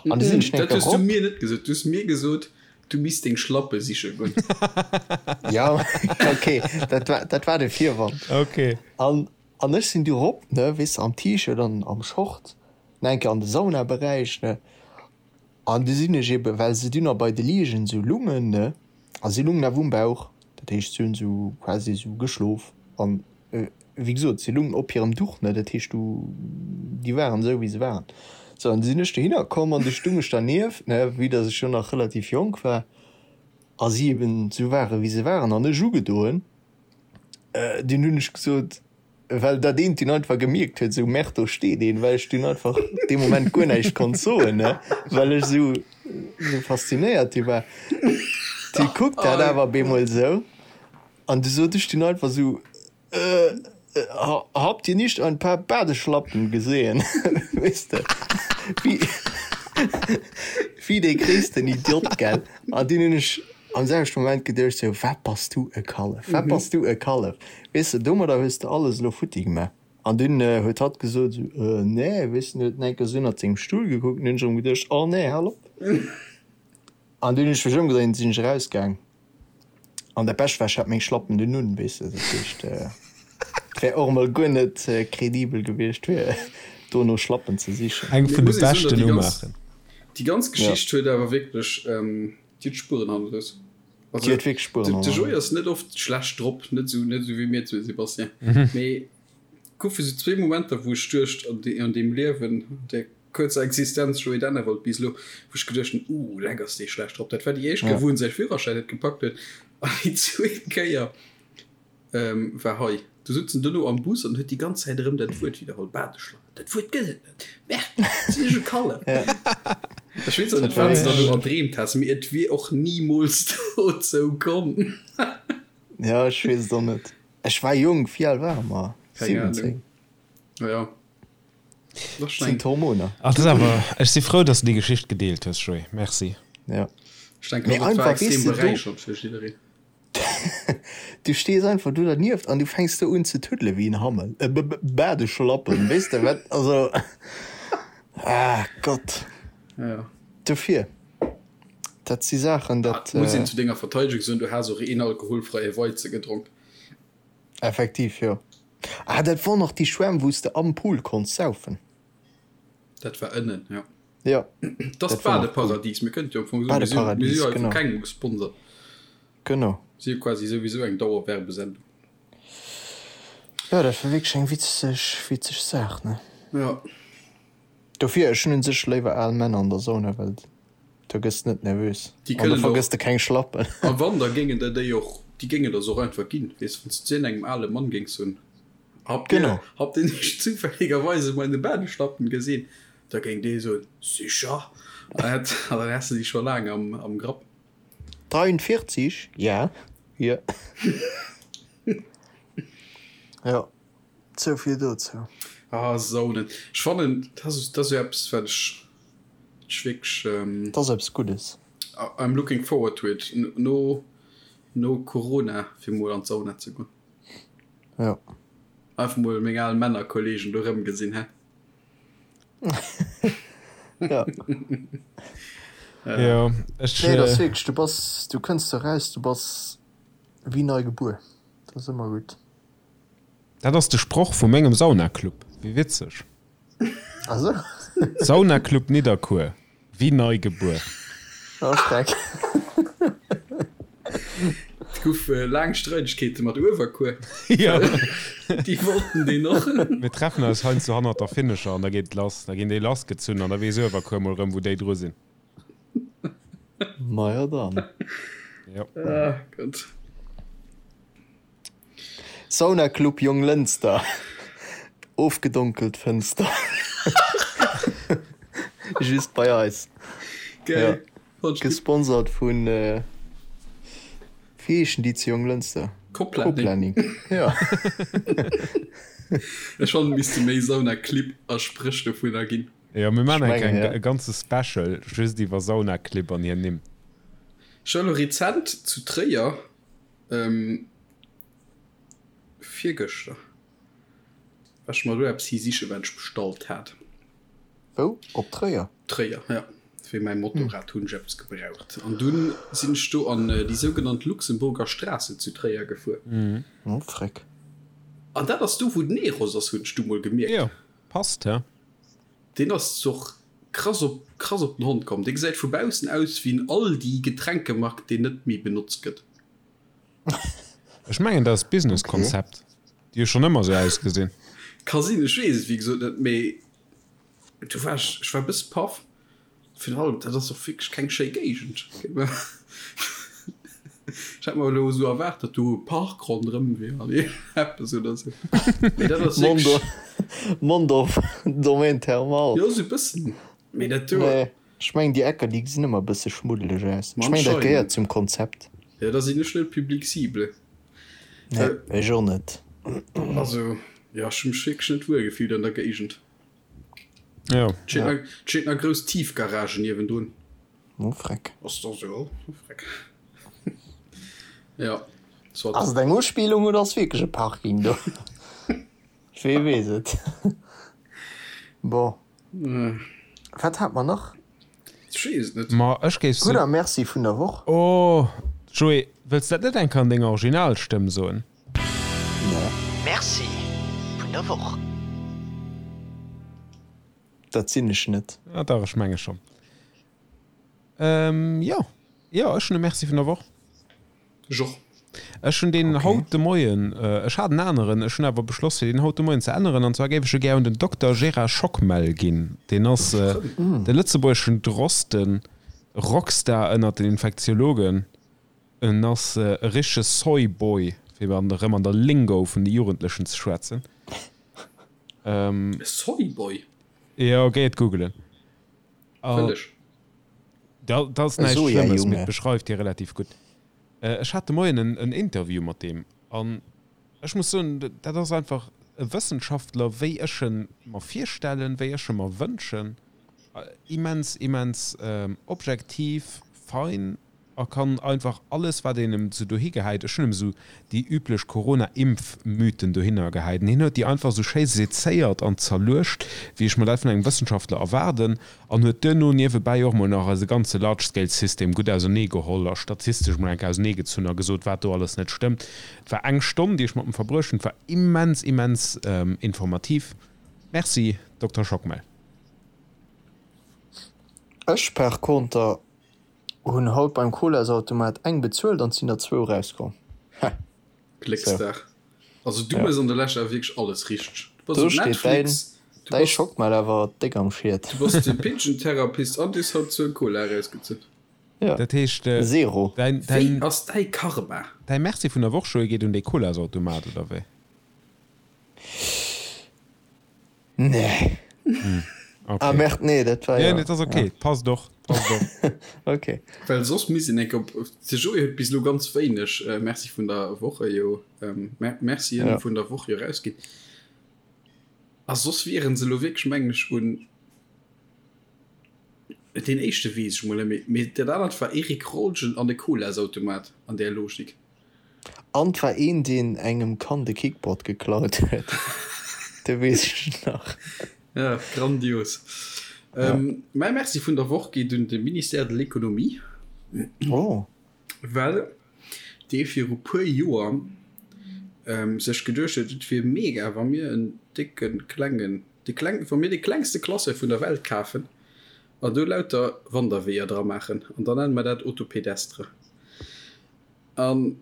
An du sinn ech Dat hues du mir net gesot. Du hues mir gesot, du misst deng Schlappe siche goen. Ja, okay, dat war, dat war de Virwand. Okay. An, an ech sinn du rop, ne, weess de, am T-Shirt an am Short, nach eng Kéier an de Saunaberäich, ne. An du sinn ech eben, well se dunn nach bei de Liegen esou lungen, ne, a si lungen awer um Bauch, dat heescht, si hunn esou quasi esou geschlof an Wéi gesot, si lungen op hirem Duch, ne, dat heescht, du, déi waren esou, wéi se waren. Sou, an du sinn ech dohinner komm an du stung ech dernieft, ne, vue dass ech jo nach relativ jonk war a si eben esou waren, wéi se waren, an ech ugedoen. Dunn hunn ech gesot, well dat eent dunn einfach gemierkt huet, esou, Merde, do steet een, well ech dunn einfach dee Moment guer näischt konnt soen, ne, well ech esou, esou faszinéiert du war. Du kuckt dat awer op eemol esou. An du sot ech dunn einfach sou, Äh, habt ihr nicht ein paar Badeschlappen gesehen? Weess de, wéi, wéi dee gréissten Idiot, gell? An dunn hunn ech am selwechte Moment geduecht sou, Wat bass du e Kallef, wat bass du e Kallef? Weess de, domadder hues de alles elo futti gemaach. An dunn huet hatt gesot sou, Äh, nee, weess de, huet en eng Kéier sou ënnert sengem Stull gekuckt, an dunn hunn ech erëm geduecht, Oh nee, hal op! An dunn hunn ech mech ëmgedréint, sinn ech erausgaang. An dat Bescht war, ech hat meng Schlappen dunn un, weess de, dat heescht, et wär och emol guer net kredibel gewiescht, fir dono Schlappen ze sichen. Eng vun de beschten Umaachen. Déi ganz Geschicht huet awer wierklech, déi huet Spueren hannerlooss. Déi huet wierklech Spueren hannerlooss. De Joé ass net oft schlecht drop, net esou, net esou wéi mir zwee, Sébastien, mee goufe sou zwee Momenter, wou ech duecht an deem Liewen, an där kuerzer Existenz Joé Dennewald bis elo, wou ech geduecht hunn, uh, leck ass dee schlecht drop. Dat war déi éischt Kéier, wou en säi Führerschäin net gepackt huet an déi zweet Kéier war hei. Du sutz en dono am Bus an huet déi ganz Zäit erëm dat Wuert widderholl, Badeschlappen. Dat Wuert gëtt et net. Merde, sinn ech e Kallef. Ech weess och net, wat s de do erdreemt has, mee et wier och nimools dozou komm. Jo, ech weess et och net. Ech war jonk, wéi al ware mer? 17? Jo. Sinn d'Hormoner. Ach, dat ass awer, ech si frou, dass de déi Geschicht gedeelt hues, Joé. Merci. Ja. Ech denken Mee och, et war einfach, weess extrem de, do, beräichernd fir jiddereen. du stees einfach do dernieft an du fänks do un ze tuddele wéi en Hammel, e Badeschlappen, weess de wat, also, ah Gott. Ja. Dofir, dat si Saachen, dat. Ah, muss een zu denger Verteidegung soen, du has och een alkoholfreie Weize gedronk. Effektiv, jo. Ah, dat wor nach déi Schwämm, wou s de am Pool konns saufen. Dat war ënnen, jo. Jo. Dat ass d'Badeparadies. Mir kënnte jo am Fong soen, mir si Badeparadies, jo hei vu genau. kengem gesponsert. Genau. Si jo quasi souwisou eng Dauerwerbesendung. Jo, dat war wierklech eng witzeg, witzeg Saach, ne? Jo. Dofir, ech hunn un sech léiwer al Männer an der Sauna, well do gëss de net nervös Déi an do kënnen och, vergëss de keng Schlappen. a wann, da géingen der déi och, déi géingen der se och einfach ginn, weess, wann s de zu engem ale Mann géings soen, Habt dir, Genau. habt dir nicht zufälligerweise meine Badeschlappen gesehen? Da géing dee soen, Sicher! An hätt, an dann häss de déi scho laang am, am Grapp. 43, Ja, hier. Jo. Souvill dozou. Ah, Saunen. Ech fannen, dat ass, dat ass jo eppes, wat ech, ech wierklech. Dat ass eppes Guddes. I'm looking forward to it, no, no Corona, fir mol an d'Sauna ze goen. Jo. Einfach mol meng al Männerkollegen do erëmgesinn, hä? Ja. Jo, ech. Nee, dat ass wierklech, du bass, du kënns do raus, du bass wéi nei gebuer. Dat ass ëmmer gutt. Dat ass de Sproch vu mengem Saunaclub. Wéi witzeg. Ah sou. Saunaclub Nidderkuer, wéi nei gebuer. Oh Schreck. Et gouf laang Streidegkeete mat Uewerkuer. Jo. Déi wollten deen och. Mir treffen eis heiansdo hannert der Finnescher an da geet et lass. Da ginn déi lassgezunn an da weess Uewerkuer mol rëm, wou déi dru sinn. Majo dann. Jo. Ah Gott. Sauna Club Jonglënster, ofgedonkelt Fënster. Just bei eis. Geil. Ja. Gesponsert vun wéi heeschen déi zu Jonglënster? Coplanning. Ja. Ech fannen et misste méi Sauna Clibb a Spréch dovunner ginn. Jo, mir maachen eng Kéier e ganze Special just iwwer Sauna Clibb an hir Nimm. Ech war elo rezent zu Tréier Virgëschter war ech mer do eppes hi sichen, wat ech bestallt hat. Wou? Op Tréier? Tréier, ja. Fir mäi Motorrad hunn ech eppes gebraucht. An dunn sinn ech do an déi sougenannt Luxemburger Straße zu Tréier gefuer. Oh, freck. An dat ass do, wou den Eros ass, hunn ech du mol gemierkt. Jo, passt, he? Deen ass och krass op krass op den Hond komm. Dee gesäit vu baussen aus wéi en Aldi-Getränkemarkt, deen net méi benotzt gëtt. Ech mengen dat ass d'Businesskonzept. Déi hu schonn ëmmer esou ausgesinn. Ka sinn, ech weess et wéi gesot net, mee du war ech, ech war e bësse paff. Virun allem, dat ass och wierklech keng schéi Géigend. Ech hat mer elo esou erwaart, datt do e Park ronderëm wier an eppes oder esou. Mee dat ass wierklech. Mondorf, Domaine thermal. Jo, esou e bëssen. Mee dat do. Nee, ech mengen déi Ecker, déi gesinn ëmmer e bësse schmuddeleg aus. Ech mengen dat gehéiert zum Konzept. Jo, da sinn ech net d'Public cible. Nee, ech och net. Also, jo, ech hu mech wierklech net wuel gefillt an der Géigend. Jo. Et steet nach, et steet nach grouss Tiefgarage niewendrun. Oh freck. Ass da sou, oh freck. Ja, soit. Ass et eng Uspillung oder ass wierklech e Parking do? Wee weess et. Bon. Wat hat mer nach? Ech weess et net. Ma ech géif Gudder Merci vun der Woch. Oh! Joé, wëlls dat net eng Kéier an denger Originalstëmm soen? Nee. Merci vun der Woch. Dat sinn ech net. Ah dach, ech menge schonn. Ähm, jo. Jo, ech hunn e Merci vun der Woch. Ech och. Ech hunn deen haut de Moien, ech hat en aneren, ech hunn awer beschloss fir deen haut de Moien ze änneren, an zwar géif ech e gär un den Dokter Gérard Schockmel ginn. Deen ass de lëtzebuergeschen Drosten, Rockstar ënnert den Infektiologen. En ass e richtege Soy-Boy, fir erëm an der Lingo vun de Jugendlechen ze schwätzen. E Soy-Boy? Jo, géi et googelen. Wëll ech. Dat ass näischt Schlëmmes, mee et beschreift hie relativ gutt. Ech hat de Moien en Interview mat deem an ech muss soen, dat ass einfach e Wëssenschaftler, wéi ech e mer virstellen, wéi ech e mer wënschen. Immens, immens objektiv, fein a kann einfach alles wat een em sou dohi gehäit, ech hunn em sou déi üblech Corona-Impf-Mythen dohinner gehäit, an hien huet déi einfach sou schéi sezéiert an zerluecht, wéi ech mer dat vun engem Wëssenschaftler erwaarden, an huet duerno niewebäi och mol nach eise ganze Large-Scale-System gutt ausernee geholl a statistesch mol eng Kéier ausernee gezunn a gesot, wat do alles net stëmmt. Et war eng Stonn, déi ech mat em verbruecht hunn, et war immens, immens informativ. Merci, Dokter Schockmel. Ech par conter Hun haut beim Colasautomat eng bezuelt an sin der zwou rauskomm. Heh. Glécksdag. Also du mëss an der Lescht awer wierklech alles richteg. Du bass Do op steet däin Netflix, du däi bass Schockmel awer déck am Schiet. du bass de Pigeon-Therapist an du hues haut zwou Cola erausgezunn. Ja. Dat heescht, Zero. däin, Wéi däin, ass däi Karma? däi Merci vun der Woch, Joé, geet un dee Colasautomat, oder wéi? Nee. Okay. Ah merde, nee, dat war ja. Ja, nee, dat ass okay. Ja. Passt och. Passt och. Okay. Well soss misst een enk op de Joé huet bis elo ganz wéineg äh, Merci vun der Woche jo ähm, Mer Mercien Ja. vun der Woch jo rausginn. A soss wieren se elo wierklech mengen ech un deen éischte weess ech mol net méi, mee dat anert war Eric Rolgen an de Colasautomat an där Logik. An 't war een deen engem Kand e Kickboard geklaut huet, de weess ech nach. Ja, grandios. Mäi Merci vun der Woch geet un de Ministère de l'Économie. Oh. Well dee viru puer Joer sech geduecht huet, et wier mega wa mir en décke klengen, de kleng, wa mir de klengste Classeur vun der Welt kafen an do lauter Wanderweeër dra maachen an da nenne mer dat Autopédestre. An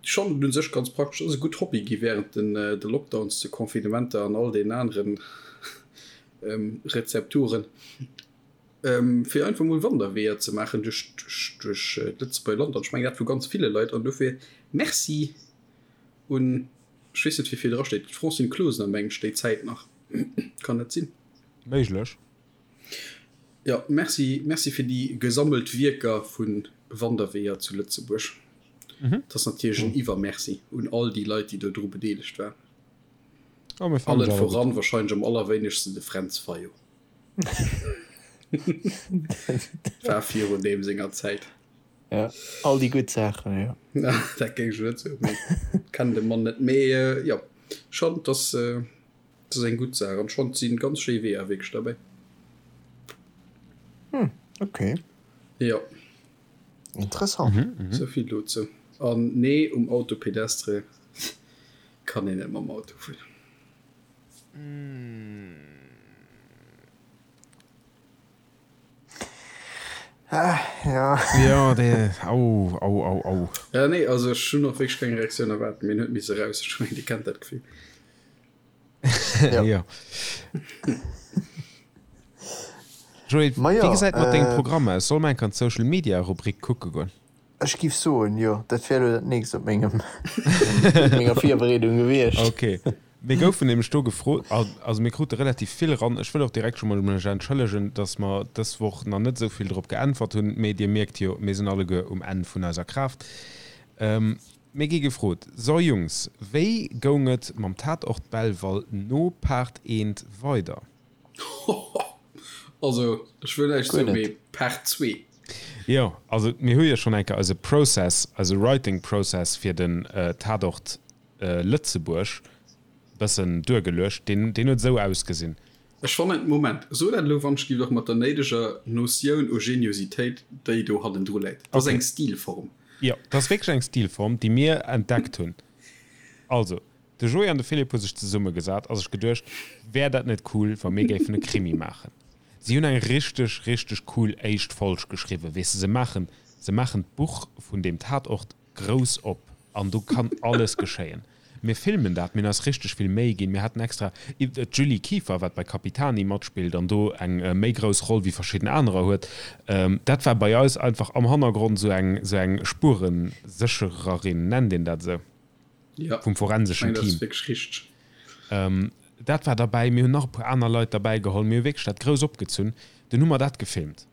schonn et un sech ganz praktesch ass, e gutt Hobby gi wärend den de Lockdowns, de Confinementer an all deenen aneren Rezepturen, fir einfach mol Wanderweeër ze maachen duerch duerch d'Lëtzebuerger Land. An ech mengen dat vu ganz ville Leit. An dofir Merci un, ech weess net wie vir dra steet, d'Francine Closener mengen ech déi Zäit nach, kann dat sinn? Méiglech. Jo, merci, merci fir déi gesammelt Wierker vu Wanderweeër zu Lëtzebuerg. Dat ass natierlech en Iwwermerci un all déi Leit, déi do dru bedeelegt waren. Oh, mir fannen Allen se awer gutt. voran wahrscheinlech am allerwéinegsten de Fränz Fayot. War virun deem senger Zäit. Ja, all déi gutt Saachen, jo. Dat géing ech net soen, mee kennen de Mann net. Mee jo, schonn, dass. Dat ass eng gutt Saach an schonn sinn ganz schéi Weeër wierklech derbäi. Hm, okay. Jo. Interessant. Mhm, mhm. Souvill dozou. An nee, um Auto pédestre kann een net mam Auto fueren. Ah, ja. Ja, dee, au, au, au, au. Ja, nee, also ech hunn och wierklech keng Reaktioun erwaart, mee en huet misse raus. Ech mengen, Dir kennt dat Gefill. Ja. ja. Joé, Ma wéi jo, gesäit mat dengem äh, Programm aus? Soll mer enk an d'Social Media Rubrik kucke goen? Ech giff soen, jo, dat wär elo dat nächst op mengem op menger Virbereedung gewiescht. Okay. Mir goufen nämlech do gefrot, also mir krute relativ vill eran. Ech wëll och direkt scho mol mech entschëllegen, dass mer dës Woch nach net esou vill drop geäntwert hunn, mee Dir mierkt jo, mir sinn alleguer um Enn vun eiser Kraaft. Mir gi gefrot, So Jungs, wéi goung et mam Tatort Belval no Part eent weider? Also ech wëll näischt Guer soen, net. mee Part zwee. Jo, also mir hu jo schonn eng Kéier eise Process, eise Writing Process fir den Tatort Lëtzebuerg bëssen duergeluecht. Deen, deen huet esou ausgesinn. Ech fannen, Moment, so dat elo wann ech giff och mat der néideger Notioun u Geniositéit déi do hannendru läit. Dat ass Okay. eng Stilform. Jo, dat ass wierklech eng Stilform, déi mir entdeckt hunn. Also, de Joé an de Philippe hu sech zesummegesat a sech geduecht, Wär dat net cool, wa mir géifen e Krimi maachen? Si hunn eng richteg, richteg cool éischt Folg geschriwwen. Weess de, se maachen, se maachen d'Buch vun deem Tatort grouss op an do kann alles geschéien. Mir filmen dat, mir hunn eis richteg vill Méi ginn, mir haten extra d'Julie Kieffer, wat bei Capitani matspillt an do eng méi grouss Roll wéi verschidden anerer huet, dat war bei eis einfach am Hannergrond esou eng esou eng Spuereséchererin, nennt een dat esou? Jo, vum forenseschen ech mengen, dat Team. ass wierklech richteg. Dat war derbäi, mir hunn nach e puer aner Leit derbäi geholl, mir hu wierklech dat grouss opgezunn. Dunn hu mer dat gefilmt.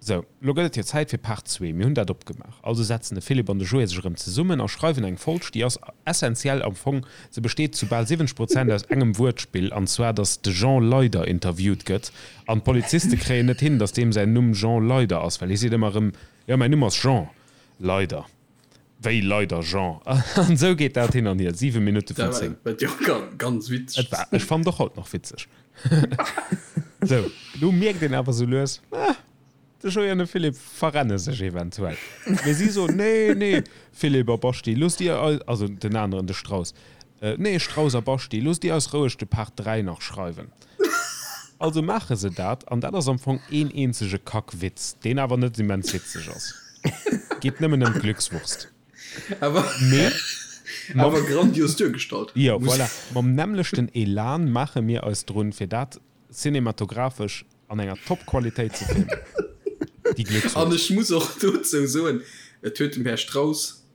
Sou, lo gëtt et jo Zäit fir Part zwee. Mir hunn dat opgemaach. Also setzen de Philippe an de Joé sech erëm zesummen a schreiwen eng Folg, déi ass essentiell am Fong, se besteet zu bal 70 Prozent aus engem Wuertspill, an zwar datt de Jean Leyder interviewt gëtt an d'Poliziste kréien net hin, datt deem säin Numm Jean Leyder ass, well hie seet ëmmer erëm, jo, mäin Numm ass Jean Leyder. Wéi Leyder Jean? An esou geet dat hin an hier, 7 Minutte vun 10. Dat war jo ganz witzeg. Et war, ech fannen et och haut nach witzeg. Sou, lo mierkt een awer sou lues, ah, de Joé an de Philippe verrenne sech eventuell. Mee si soen, nee, nee, Philippe a Baschi, loosst dir eis, also den aneren, de Strauss, nee, Strauss a Baschi, loosst dir eis roueg de Part 3 nach schreiwen. Also maache se dat, an dat ass am Fong een eenzege Kackwitz, deen awer net immens witzeg ass. Geet nëmmen ëm d'Glückswurst. Awer, Mee mam, awer grandios duergestallt. Jo, voilà. Mam nämmlechten Elan maache mir eis drun, fir dat cinematographesch an enger Top-Qualitéit ze filmen. Déi An Glückswurst. ech muss och dozou soen, et huet dem Här Strauss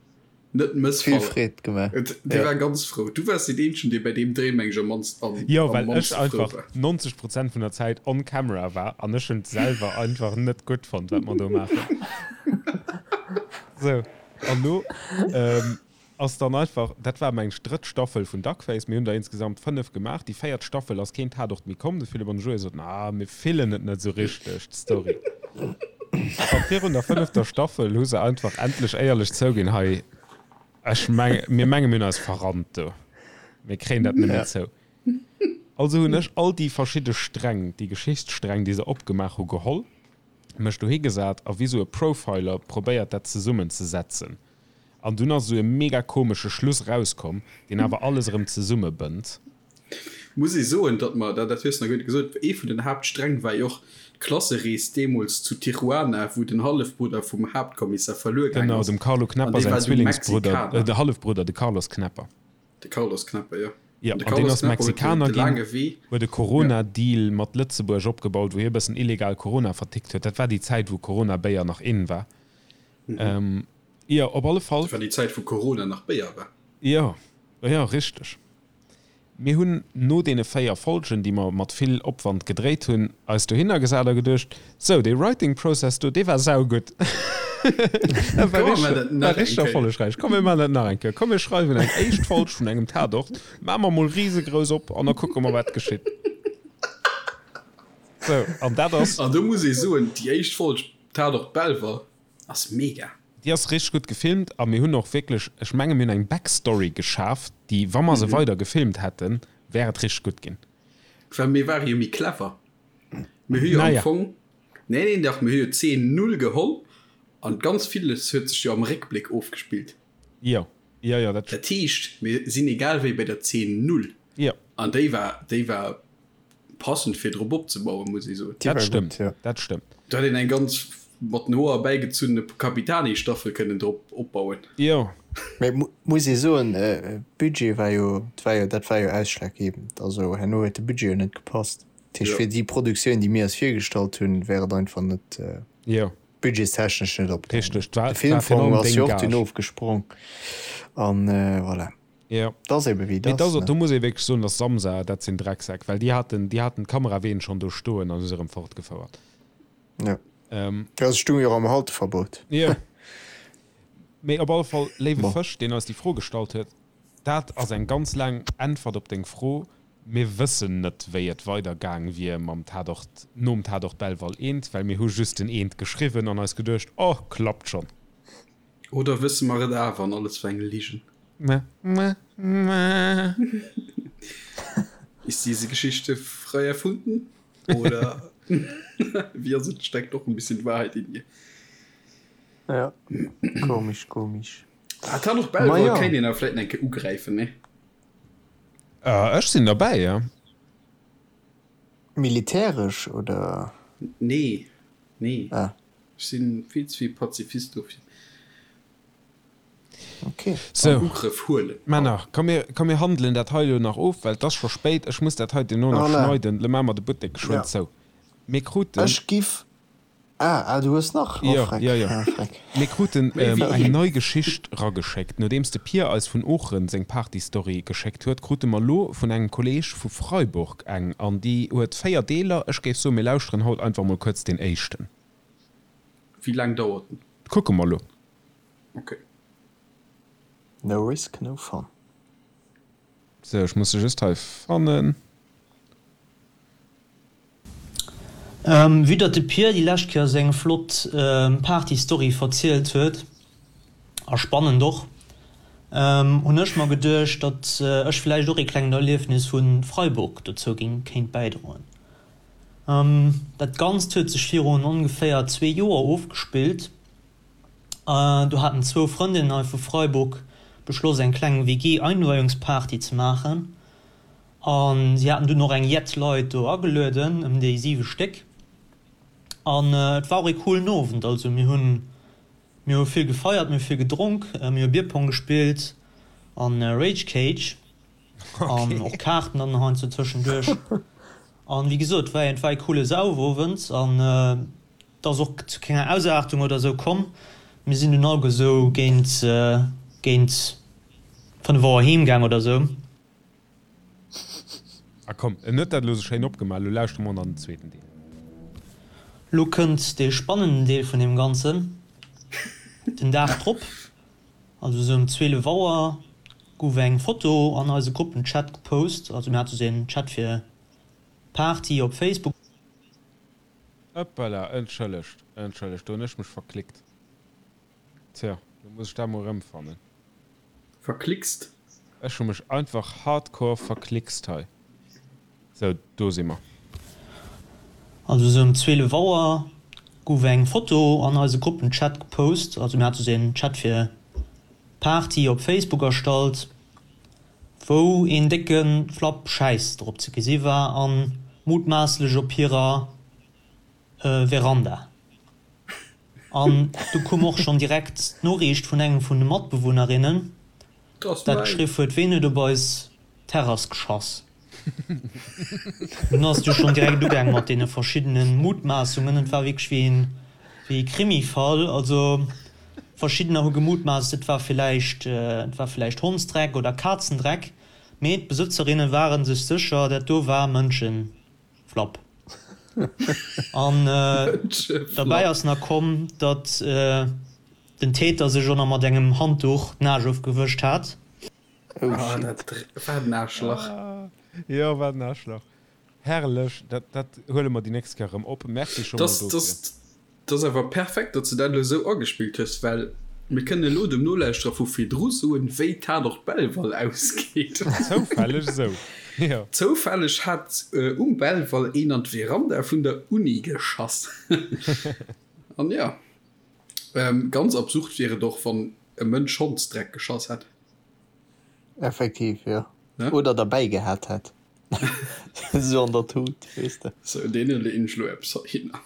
net Vill mëssfallen. Freed gemaach. Et, dee Ja. war ganz frou. Du waars deen eenzegen, dee bei deem Dréi, meng ech, am mannst, am, Jo, am well ech mannste frou einfach war. 90 Prozent vun der Zäit on camera war an ech hunn et selwer einfach net gutt fonnt, wat mer do maachen. Sou, an lo ass dann einfach, dat war meng ech drëtt Staffel vun Duckface, mir hunn der insgesamt 5 gemaach, déi véiert Staffel ass keen Tatort méi komm, de Philippe an de Joé soten, ah mir fillen et net sou richteg, d'Story. A virun der fënnefter Staffel hu se einfach endlech éierlech zouginn, hei, ech meng, mir menge mir hunn eis verrannt do, mir kréien dat net méi zou. Also hunn ech all déi verschidde Sträng, déi Geschichtssträng, déi se opgemaach hu geholl, mech dohi gesat a wéi sou e Profiler probéiert dat zesummen ze setzen an dunn ass sou e mega komesche Schluss rauskomm deen awer alles erëm zesumme bënnt. Muss ee soen, datt mer, dat hues de nach guer net gesot, ee vun den Haaptsträng war jo och d'Klasserees deemools zu Tijuana, wou den Hallefbrudder vum Haaptkommissar verluer gaang Genau, ass dem Carlo an Knepper dee säin war du Zwillingsbrudder, Mexikaner. de Hallefbrudder, de Carlos Knepper. De Carlos Knepper, jo. Jo, An de an deen Carlos ass Knepper huet de, Mexikaner de ginn, laange Wee, huet e ja. Corona-Deal mat Lëtzebuerg opgebaut, wou hie e bëssen illegal Corona vertickt huet. Dat war déi Zäit, wou Corona-Béier nach in war. Jo, op alle Fall. Dat war déi Zäit, wou Corona nach Béier war. Jo, jo, richteg. Mir hunn no deene 4 Folgen, déi mer mat vill Opwand gedréit hunn, eis dohinner gesat a geduecht, Sou, dee Writing Process do, dee war saugutt. Dat war Komm, mir maachen dat richteg, war nach eng richteg Kéier. erfollegräich. Komm, mir maachen dat nach eng Kéier. Komm, mir schreiwen eng éischt Folg vun engem Tatort, maache mer mol risegrouss op an da kucke mer, wat geschitt. Sou, an dat ass. An do muss ee soen, déi éischt Folg Tatort Belval ass mega. Déi ass richteg gutt gefilmt a mir hunn och wierklech, ech menge mir hunn eng Backstory geschaf, déi, wa mer se weider gefilmt hätten, wär et richteg gutt ginn. Well mir ware jo méi clever. Mir hu jo am Naja. Fong, nee, nee, dach, mir hu jo Zeen null geholl an ganz villes huet sech jo am Réckbléck ofgespillt. Jo, jo, jo, dat. Dat heescht, mir sinn egal wéi bei der Zeen null. Jo. An déi war, déi war Passend fir drop opzebauen, muss ee soen. Dat stëmmt, dat stëmmt. Do hätt een eng ganz mat den Hoer bäigezunne Capitani-Staffel kënnen drop opbauen. Jo. Mee muss ee soen, Budget war jo, war jo, dat war jo ausschlaggebend. Also herno huet de Budget jo net gepasst. Dat heescht, fir déi Produktioun, déi mir eis virgestallt hunn, wär et einfach net budgetstechnesch net opgaangen. Richteg, De Filmfong ass jo och dunn ofgesprong an voilà. Jo. Et ass ebe wéi et Mee ass, do ne? muss ee wierklech soen, dass Samsa, dat sinn Drecksäck, well déi haten, déi haten d'Kameraween schonn do stoen an hu se erëm fortgefouert. Jo. Ähm. Jo, se stounge jo och am Halteverbot. Jo. Mee op alle Fall, léiwe Bon. Fësch, deen eis déi Fro gestallt huet, dat ass eng ganz laang Äntwert op deng Fro. Mir wëssen net, wéi et weider gaang wier mam Tatort, nom Tatort Belval eent, well mir hu just den eent geschriwwen an eis geduecht, Oh, klappt schonn. Oder wësse mer et awer an alles war eng Ligen? Ist diese Geschichte frei erfunden? Oder wie ass et, steckt doch ein bisschen Wahrheit in ihr? Ja, komisch, komisch. Ah, Tatort Belval kéint een awer vläit eng Kéier ugräifen, nee? Ech sinn derbäi, jo. Militäresch, oder? Nee, nee. Ah. Ech sinn vill ze vill Pazifist dofir. Okay. Sou, Ugrëff huelen. Männer, komm mir, komm mir handelen dat hei elo nach of, well et ass scho spéit. Ech muss dat hei duerno nach Voilà. schneiden. Lo maache mer de Buttek geschwënn Ja. zou. Mir kruten. Ech giff. Ah, ah, du hues nach? Oh, Jo, freck. jo, jo. Ah, freck. Mir kruten Méi wéi eng een. nei Geschicht rageschéckt. Nodeems de Pir eis vun Oochen seng Party-Story geschéckt huet, krute mer lo vun engem Kolleeg vu Freiburg eng. An déi huet 4 Deeler. Ech géif soen, mir lauschteren haut einfach mol kuerz deen éischten. Wéi laang dauert en? Kucke mer lo. Ok. No risk, no fun. Sou, ech muss se just hei fannen. Vue datt de Pir déi lescht Kéier seng flott Party-Story verzielt huet, a spannend och, hunn ech mer geduecht, datt ech vläicht och ee klengt Erliefnis vu Freiburg dozou géing kéint bäidroen. Dat Ganzt huet sech virun ongeféier zwee Joer ofgespillt. Do haten zwou Frëndinnen hei vu Freiburg beschloss eng kleng WG-Einweihungsparty ze maachen. A si haten dunn och eng jett Leit do agelueden, ëm déi 7 Stéck. An et war och ee coolen Owend. Also mir hunn, mir hu vill gefeiert, mir hu vill gedronk, mir hu Bierpong gespillt an Rage Cage an och Kaarten dann heiansdo tëschenduerch. An wéi gesot, et war et war ee coole Saufowend an et ass och zu kenger Ausaartung oder esou komm. Mir sinn dunn alleguer esou géint, géint 5 Auer heem gaang oder esou. A komm, en huet dat elo sou schéin opgemaach, elo lauschtere mer an den zweeten Deel. Lo kënnt dee spannenden Deel vun deem Ganzen. Den Dag drop, also sou ëm 12 Auer, gouf eng Foto an eise Gruppenchat gepost. Also mir hate sou een Chat fir Party op Facebook. Ëppala, entschëllegt, entschëllegt, do hunn ech mech verklickt. Tja, lo muss ech dat mol erëmfannen. Verklickst? Ech hu mech einfach hardcore verklickst hei. Sou, do si mer. Also sou ëm 12 Auer gouf eng Foto an eise Gruppenchat gepost. Also mir hate sou een Chat fir Party op Facebook erstallt, wou een décke Flapp Schäiss drop ze gesi war an mutmaasslech op hirer Veranda. An du koum och schonn direkt d'Noriicht vun engem vun de Matbewunnerinnen, dat geschriff huet, Ween huet op eis Terrass geschass? Dunn ass et jo schonn direkt ugaang mat deene verschiddene Mutmaassungen. Et war wierklech wéi een, wéi ee Krimifall. Also verschiddener hu gemutmaasst, et war villäicht, et war villäicht Hondsdreck oder Kazendreck, mee d'Besëtzerinne ware sech sécher, dat do war Mënschen. Flapp. An derbäi ass nach komm, datt den Täter sech och nach mat engem Handduch d'Naasch ofgewëscht hat. Oh shit. Wat en Aarschlach. Jo, wat en Aarschlach. Herrlech. Dat, dat huele mer déi nächst Kéier erëm op. Merci scho mol dofir. 't ass awer perfekt, datt s de dat elo esou agespillt hues, well mir kënnen elo dem Nolauschterer vu virdru soen, wéi Tatort Belval ausgeet. Zoufälleg esou, jo. Zoufälleg hat um Belval een an d'Veranda vun der Uni geschass. An jo, ganz absurd wier et och, wann e Mënsch Hondsdreck geschass hätt. Effektiv, jo. Oder derbäi gehat hätt. Esou an der Tut, weess de. Sou, deene leeën ech lo eppes heihinner.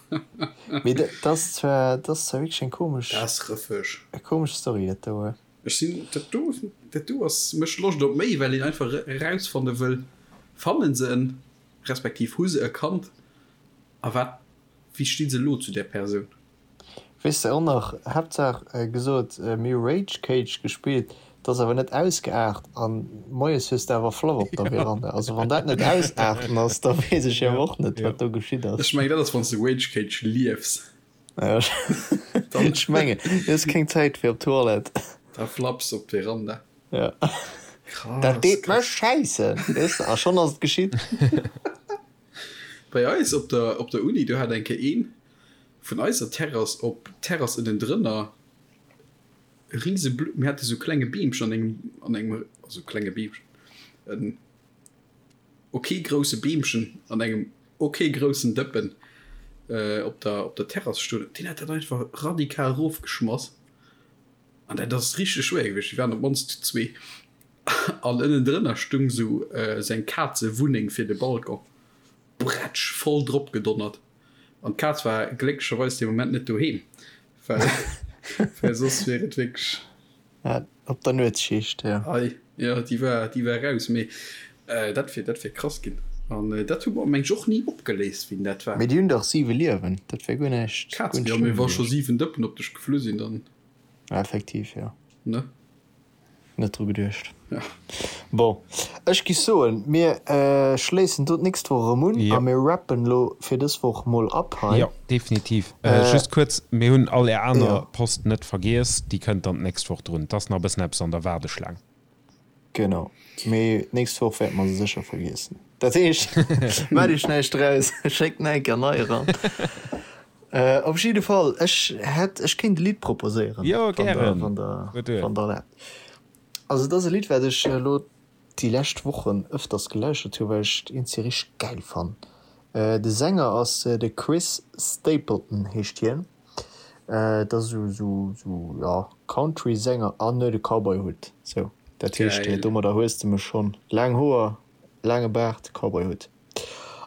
Mee dat ass zwar, dat ass zwar wierklech eng komesch. Dat ass rëffeg. Eng komesch Story, dat do. Ech sinn, dat do, dat do ass, mécht Loscht op méi, well een einfach erausfanne wëll, fannen se en, respektiv hu se e Kand a wat, wéi sti se elo zu där Persoun? Weess de och nach, Haaptsaach gesot, mir hu Rage Cage gespillt, et ass awer net ausgeaart an moies hues de awer Flapp op der Veranda. Also wann dat net ausaarten ass, da weess ech awer och net wat do geschitt ass. Ech mengen dat ass wann s de Rage Cage liefs. Ech mengen du hues keng Zäit fir op d'Toilette. Da flapps op d'Veranda. Ja. Dat deet mech schäissen, weess de, a schonn ass et geschitt. Bei eis op der op der Uni, do hat eng Kéier een Vun eiser Terrass op d'Terrass ënnendrënner e rise Blu, mir hate sou klenge Beemchen an engem, an engem, also klenge Beemchen, en ok grousse Beemchen an engem ok groussen Dëppen. op der op der Terrass stoen, deen hat dat einfach radikal erofgeschmass an dat ass richteg schwéier gewiescht. Déi waren op d'mannst zu zwee an ënnendrënner stung sou seng Kazewunneng fir de Balcon. Bretsch voll drop gedonnert an d'Kaz war glécklecherweis dee Moment net doheem, well well soss wier et wierklech. Ja, op der Nuetsschicht, jo. Ei, jo, déi war, déi war raus, mee dat wier, dat wier krass ginn. An dat hu mer, meng ech, och ni opgeléist, wien dat war. Mee déi hunn dach siwe Liewen, dat wär guer näischt, guer Kazen, jo, mee wa scho siwen Dëppen op dech geflu sinn, dann. Effektiv, jo. Ne? Net dru geduecht. Ja. Bon, ech giff soen, mir schléissen do d'nächst Woch erëm un a mir rappen lo fir dës Woch mol ab hei. Jo, definitiv. Just kuerz, mir hunn all är aner Post net vergiess, déi kënnt dann d'nächst Woch drun. Et ass nach e bëssen eppes an der Waardeschlaang. Genau, mee d'nächst Woch wäerte mer se sécher vergiessen. Dat heescht, maacht iech näischt draus, schéckt nach eng Kéier nei eran. Op jidde Fall, ech hätt, ech kéint e Lidd proposéieren, Jo, wann der, gären. wann der, Huet duer. wann der erlaabt. Also et ass e Lidd, wat ech elo déi lescht Wochen ëfters gelauschtert hu, well ech et iergendwéi richteg gäil fannen. De Sänger ass de Chris Stapleton heescht hien. Et ass esou, esou, esou, jo, Country-Sänger an huet e Cowboy-Hutt. Sou, dat heescht, Gäil. domadder hues de mech schonn. Laang Hoer, laange Baart, Cowboy-Hutt.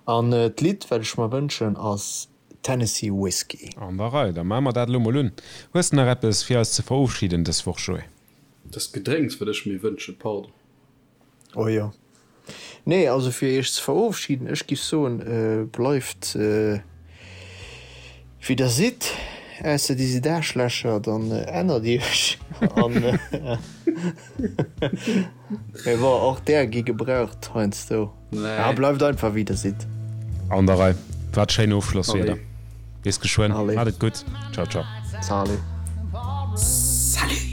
An d'Lidd, wat ech mer wënschen, ass Tennessee Whiskey. An der Rei, da maache mer dat elo mol un. Hues de nach eppes fir eis ze verofschiden dës Woch, Joé? Dat Gedrénks, wat ech mir wënschen, pardon. Oh jo. Nee, also fir iech ze verofschiden, ech giff soen, bleift wéi der sidd, ausser dir sidd Aarschlächer, dann ännert iech an. Mee bon, och där gi gebraucht heiansdo. Nee. Bleift einfach wéi der sidd. An der Rei. Wat schéin Ofschlosswierder. Bis geschwënn. Maat et gutt. Ciao ciao. Salut. Salut.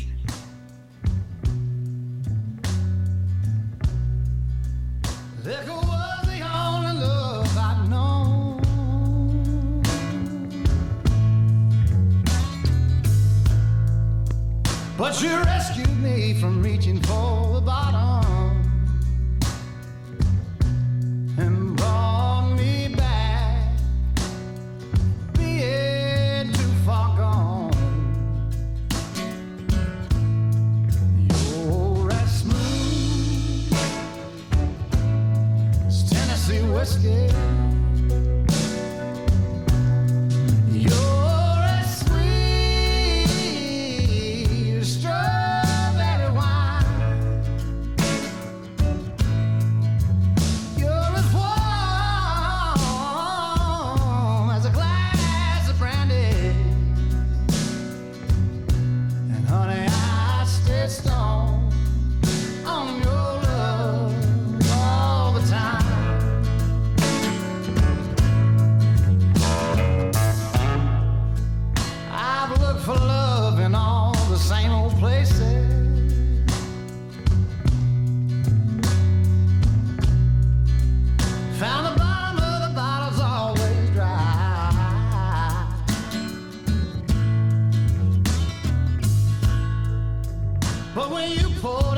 But you rescued me from reaching for the bottom and brought me back being too far gone. You're as smooth as Tennessee whiskey. You're as sweet as strawberry wine. You're as warm as a glass of brandy. And honey, I stay stoned on your love all the time. I've looked for love in all the same old places. Found the bottom of the bottle's always dry. But when you pour.